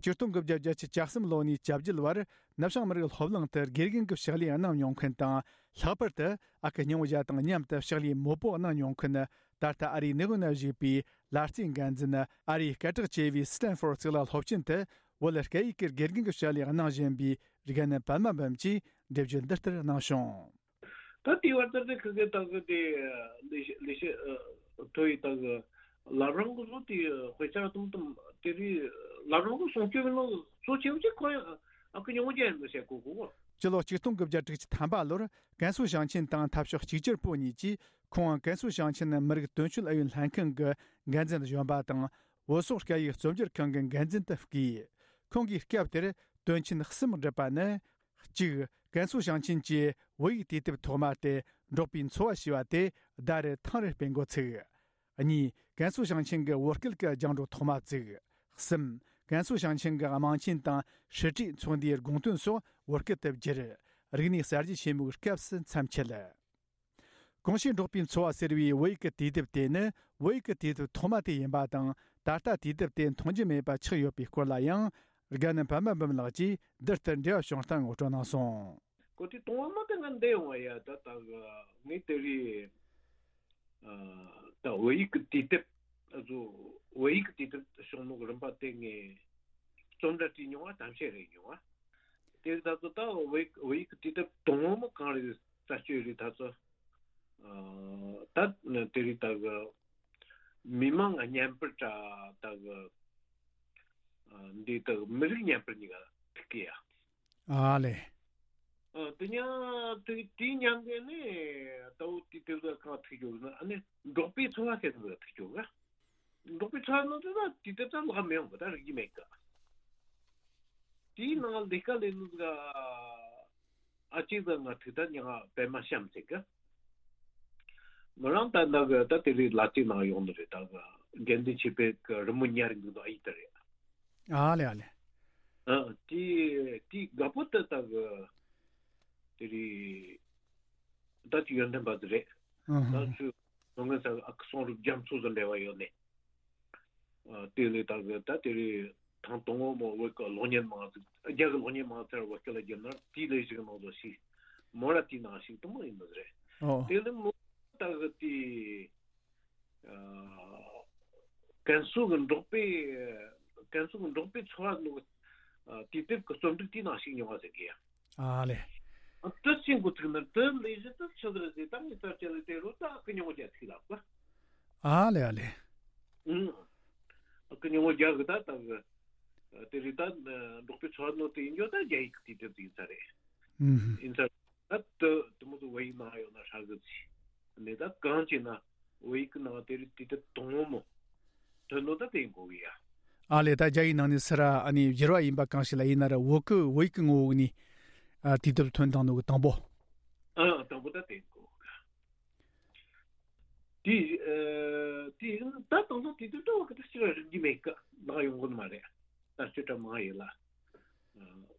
ཆིག་སྟོང་དགུ་བརྒྱ་བརྒྱད་ཅུ་གྱ་གསུམ་ལོ་ནས་གྱ་བརྒྱད་བར་ནུབ་བྱང་མི་རིགས་སློབ་གླིང་དུ་དགེ་རྒན་གྱི་ཕྱག་ལས་གནང་མྱོང་མཁན་དང་། ལྷག་པར་དུ་ཨ་ཁུ་སྙིང་བོ་རྒྱལ་དང་མཉམ་དུ་ཕྱག་ལས་མོད་པོ་གནང་མྱོང་མཁན། ད་ལྟ་ཨ་རིའི་ནེའུ་ཡོག་ན་བཞུགས་པའི་ལ་རྩེའི་འགན་འཛིན། ཨ་རིའི་སྐད་གྲགས་ཆེ་བའི་སི་ཏན་ཧྥོར་གཙུག་ལག་སློབ་ཆེན་དུ་བོད་སྐད་ཡིག་གི་དགེ་རྒན་གྱི་ཕྱག་ལས་གནང་བཞིན་པའི་རྒན་པད་མ་འབུམ་གྱིས་འགྲེལ་བརྗོད་འདི་ལྟར་གནང་བྱུང་། ད་དེའི་བར་དུ་དེ་ཁ་ཁ་ད་གི་དེ་ལས་བྱེད་ལས་བྱེད་ཨ་ཐོ་ཡི་ད་གི་བླ་བྲང་གི་བཟོ་དེ་དཔེ་ཆ་དུམ་དུམ་དེ་རིགས་བླ་བྲང་གི་སྲུང་སྐྱོབ་ནང་གཙོ་ཆེ་བ་ཅིག་ཁོ་ཡང་ཨ་ཁུ་ཉུང་ཅན་ཡིན་ཟེར་གོ་གོ་གོ། སྤྱི་ལོ་ཆིག་སྟོང་དགུ་བརྒྱ་དྲུག་ཅུ་ཐམ་པ་ལོར་ཀན་སུའུ་ཞིང་ཆེན་དང་འཐབ་ཕྱོགས་གཅིག་གྱུར་པུའུ་གཉིས་ཀྱིས་ཁོང་ཀན་སུའུ་ཞིང་ཆེན་མི་རིགས་དོན་གཅོད་ཨུ་ཡོན་ལྷན་ཁང་གི་འགན་འཛིན་གཞོན་པ་དང་བོད་སོག་སྐད་ཡིག་རྩོམ་སྒྱུར་ཁང་གི་འགན་འཛིན་དུ་བསྐོས། ཁོང་གིས་སྐབས་དེར་དོན་ཆེན་གསུམ་བསྒྲུབས་པ་ནི། གཅིག་ཀན་སུའུ་ཞིང་ཆེན་གྱི་བོད་ཡིག་དུས་དེབ་ཐོག་མ་དེ་འབྲོག་པའི་འཚོ་བ་ཞེས་པ་དེ་ཟླ་རེར་ཐེངས་རེ་སྤེལ་འགོ་ཚུགས། གཉིས། ཀན་སུའུ་ཞིང་ཆེན་གྱི་བོད་སྐད་ཀྱི་རྒྱང་སྒྲོག་ཐོག་མ་བཙུགས། གསུམ། ཀན་སུའུ་ཞིང་ཆེན་གྱི་དམངས་ཆེན་དང་སྲིད་གྲོས་ཚོགས་འདུའི་དགོངས་དོན་སོགས་བོད་སྐད་དུ་བསྒྱུར། རིག་གནས་གསར་བརྗེ་ཆེན་མོའི་སྐབས་སུ་མཚམས་ཆད། གོང་ཞུས་འབྲོག་པའི་འཚོ་བ་ཟེར་བའི་བོད་ཡིག་གི་དུས་དེབ་དེ་ནི་བོད་ཡིག་གི་དུས་དེབ་ཐོག་མ་དེ་ཡིན་པ་དང་། ད་ལྟ་དུས་དེབ་དེ་མཐོང་རྒྱུ་མེད་པ་ཆགས་ཡོད་པའི་སྐོར་ལ་ཡང་། དགའ་ནི་པདྨ་འབུམ་ལགས་ཀྱིས་འདིར་ལྟར་འབྲེལ་བ་བྱུང་སྟངས་ངོ་སྤྲོད་གནང་སོང་། གོ་དེ་གཏོང་བ་མ་དེ་ང་འདས་ཡོང་བ་ཡ་ད་ད་ངས་དེ་རིང་ད་བོད་ཡིག་གི་དུས་དེབ་ཨ་ཚོ་བོད་ཡིག་གི་དུས་དེབ་བྱུང་ནོ་གི་རིམ་པ་དེ་ངས་རྩོམ་འདྲ་བྲིས་མྱོང་བ་ཐམས་ཅད་རེད་མྱོང་བ། དེ་ད་ཚོ་ད་བོད་ཡིག་བོད་ཡིག་གི་དུས་དེབ་དང་པོ་མ་གང་རེད་རྩད་གཅོད་རེད་ད་ཚོ་ད་དེ་རིང་ད་གི་མི་མང་ང་བརྙན་པར་ད་ད་གི་འདི་ད་གི་མི་རིགས་བརྙན་པར་གཉིས་ཀ་ཐུག་གི་ཡ། ཨ་ལེ། ཨ་དེ་ཉ་དེ་དེའི་ཉམས་གི་ནི་ད་བོ་དེ་དེབ་ད་གང་ཐུག་ཡོད་ན་ཨ་ནི་འབྲོག་པའི་འཚོ་བ་ཟེར་ནི་ཐུག་ཡོད་ག་འབྲོག་པའི་འཚོ་བ་ནང་དུ་ད་དེ་དེབ་ད་ལག་མི་ཡོང་གི་ད་རིག་གི་མེད་གི་དེའི་ནང་ལས་ཀ་ལས་ནི་ད་ཨ་ཅེ་ད་ང་ཐུག་ད་ཉ་པད་མ་བཤམས་ཟེར་གི་མི་རང་ད་ད་གི་ད་དེ་རིང་ལ་ཅིག་ནང་ཡོང་ནི་རེད་ད་གི་དགེ་འདུན་ཆོས་འཕེལ་གི་རི་མོ་ཉར་གི་འདུག་ཨ་ཡིག་ད་རེད། ཨ་ལེ་ཨ་ལེ། ཨ་དེ་དེ་དགའ་པོ་ད་ད་གི་དེ་རིང་ད་ཅི་ཡོན་ཏན་པ་དེ་རེད། ཨ་ཧ། ད་ཚོས་ནོ་ངན་ས་ཨ་ཁུ་སོང་རུབ་རྒྱ་མཚོ་དང་འབྲེལ་བ་ཡོད་ནས། ཨ་དེ་ལས་ད་གི་ད་དེ་རིང་ཐང་དང་པོ་མོ་བོད་ཀྱི་གློག་བརྙན་མང་ཚིག་རྒྱ་གི་གློག་བརྙན་མང་ཚར་བོད་སྐད་ལ་བསྒྱུར་ན་དེའི་ལས་གཞི་གི་ནང་དུ་ཞིག་མོ་ར་དེའི་ནང་ཞིག་དུ་མ་ཡིན་ནི་རེད། ཨོ། དེ་ལས་མོ་ད་གི་དེ་ཀན་སུའུ་གི་འབྲོག་པའི་ཀན་སུའུ་གི་འབྲོག་པའི་འཚོ་བ་ནང་གི་དུས་དེབ་ཀྱི་རྩོམ་སྒྲིག་དེའི་ནང་ཞུགས་མྱོང་བ་ཟེར་གི་ཡ། ཨ་ལེ། དེ་ཅི་འགོ་ཚུགས་ན་དེ་ལས་གཞི་དེ་ཆི་ཟིག་རེད་ཟེར་ད་ངས་ས་བཅད་ལ་དེ་རུ་ད་ཀི་ཉོ་རྒྱ་ཚིག་ལབ་པ། ཨ་ལེ་ཨ་ལེ། ཨུང་། ཀི་ཉོ་རྒྱ་གི་ད་ད་གི་དེ་རིགས་ད་འབྲོག་པའི་འཚོ་བ་ནང་དེ་ཡིན་རྒྱུ་ད་རྒྱ་ཡིག་གི་དུས་དེབ་ཡིན་ས་རེད། ཨུང་། ཡིན་ས་རེད། ད་དེ་དེ་མོ་ཚོ་བོད་ཡིག་ནང་ཡོད་ན་ཧྲ་གི་ཚིག་ནས་ད་གང་བྱས་ན་བོད་ཡིག་གི་ནང་དེ་རིགས་དུས་དེབ་དང་པོ་མོ་ཐོན་ནོ་ད་དེ་ཡིན་དགོས་གི་ཡ། ཨ་ལེ། ད་རྒྱ་ཡིག་ནང་ནས་སི་ར་ཨ་ནི་བསྒྱུར་བ་ཡིན་པ་གང་ཞིག་ལ་ཡིན་ན་ར་བོད་ཀྱི་བོད་ཡིག་གི་ངོ་བོ་ནས་ཨ་དུས་དེབ་ཐོན་བཏང་ནོ་གི་དང་པོ། ཨ་དང་པོ་ད་དེ་ཡིན་དགོས་གི། དེ་ཨ་དེ་ཡིན་ད་དང་པོ་དུས་དེབ་ད་བོད་ཀྱི་ད་སྤྱིར་རིག་གི་མེད་ཀ་ལག་ཡོང་གི་མ་རེད། ད་སྤྱིར་ད་མང་ཡིན་ལ་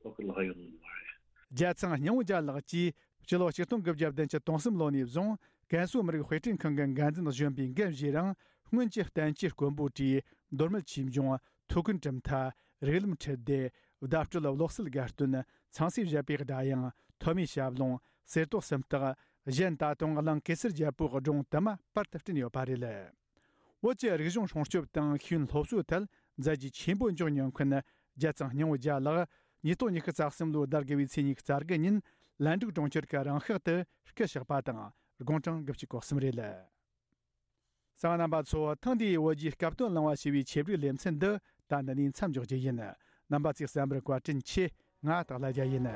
བོད་ཀྱི་ལག་ཡོང་གི་མ་རེད། རྒྱལ་ཚང་སྙིང་པོ་རྒྱལ་ལགས་ཀྱིས་སྤྱི་ལོ་ཆིག་སྟོང་དགུ་བརྒྱ་བདུན་ཅུ་དོན་གསུམ་ལོ་ནས་བཟུང་ཀན་སུའུ་མི་རིགས་དཔེ་སྐྲུན་ཁང་གི་འགན་འཛིན་གཞོན་པའི་འགན་བཞེས་རིང་སྔོན་གྱི་བསྟན་བཅོས་དཀོན་པོ་བྲིས། མདོ་སྨད་ཆོས་འབྱུང་། ཐུའུ་བཀྭན་གྲུབ་མཐའ། རིགས་ལམ་ཁྲིད་སྡེ། བརྡ་སྤྲོད་གློག་གསལ་དགའ་སྟོན། ཚངས་སྲས་བཞད་པའི་སྒྲ་དབྱངས། ཐོན་མིའི་ཞབས་ལུང་། གསེར་ཏོག་སུམ་རྟགས། གཞན་ད་དུང་གླིང་གེ་སར་རྒྱལ་པོའི་སྒྲུང་དུ་མ་པར་དུ་བསྐྲུན་ཡོད་པ་རེད། བོད་ཀྱི་རིག་གཞུང་སྲུང་སྐྱོབ་དང་ཤེས་ཡོན་སློབ་གསོའི་ཐད་མཛད་རྗེས་ཆེན་པོ་འཇོག་མྱོང་མཁན་རྒྱལ་ཚང་སྙིང་པོ་རྒྱལ་ལགས་ཉིས་སྟོང་ཉི་ཤུ་རྩ་གསུམ་ལོའི་ཟླ་དགུ་བའི་ཚེས་ཉི་ཤུ་རྩ་དགུ་ཉིན་ལན་ཀྲུའུ་གྲོང་ཁྱེར་གྱི་རང་ཤག་ཏུ་སྐུ་གཤེགས་པ་དང་དགུང་གྲངས་དགུ་བཅུ་གོ་གསུམ་རེད། གསན་པ་རྣམ་པ་ཚོ། ཐེངས་འདིའི་བོད་བརྒྱུད་སྐབས་དོན་གླེང་བ་ཞེས་པའི་ཆེད་བསྒྲིགས་ལེ་ཚན་འདི་ད་འདི་ནས་མཚམས་འཇོག་རྒྱུ་ཡིན། རྣམ་པ་ཚོས་གསན་པར་བཀའ་དྲིན་ཆེ། ང་སྟག་ལྷ་རྒྱལ་ཡིན།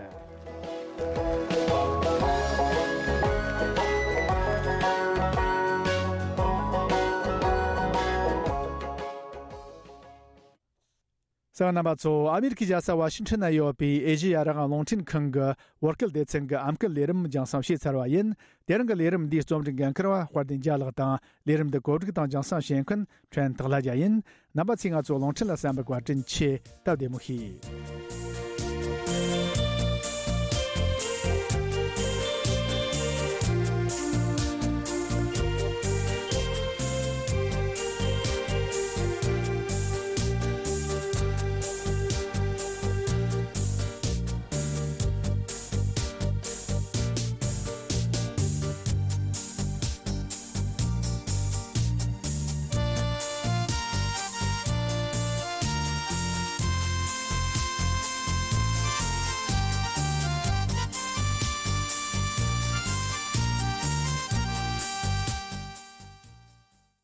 གསན་པ་རྣམ་པ་ཚོ། ཨ་མེ་རི་ཁའི་རྒྱལ་ས་ཝ་ཤིང་ཊོན་ན་ཡོད་པའི་ཨེ་ཤེ་ཡ་རང་དབང་རླུང་འཕྲིན་ཁང་གི་བོད་སྐད་སྡེ་ཚན་གྱི་ཨམ་སྐད་ལས་རིམ་རྒྱང་སྲིང་བྱས་ཚར་བ་ཡིན། དེ་རིང་གི་ལས་རིམ་འདིའི་རྩོམ་སྒྲིག་འགན་འཁུར་བ་དཔལ་ལྡན་རྒྱལ་ལགས་དང་། ལས་རིམ་འདི་གོ་སྒྲིག་དང་རྒྱང་སྲིང་བྱེད་མཁན་ཕྲན་སྟག་ལྷ་རྒྱལ་ཡིན། རྣམ་པ་ཚོས་ང་ཚོའི་རླུང་འཕྲིན་ལ་གསན་པར་བཀའ་དྲིན་ཆེ། སྟབས་བདེ་མོ་བྱོས།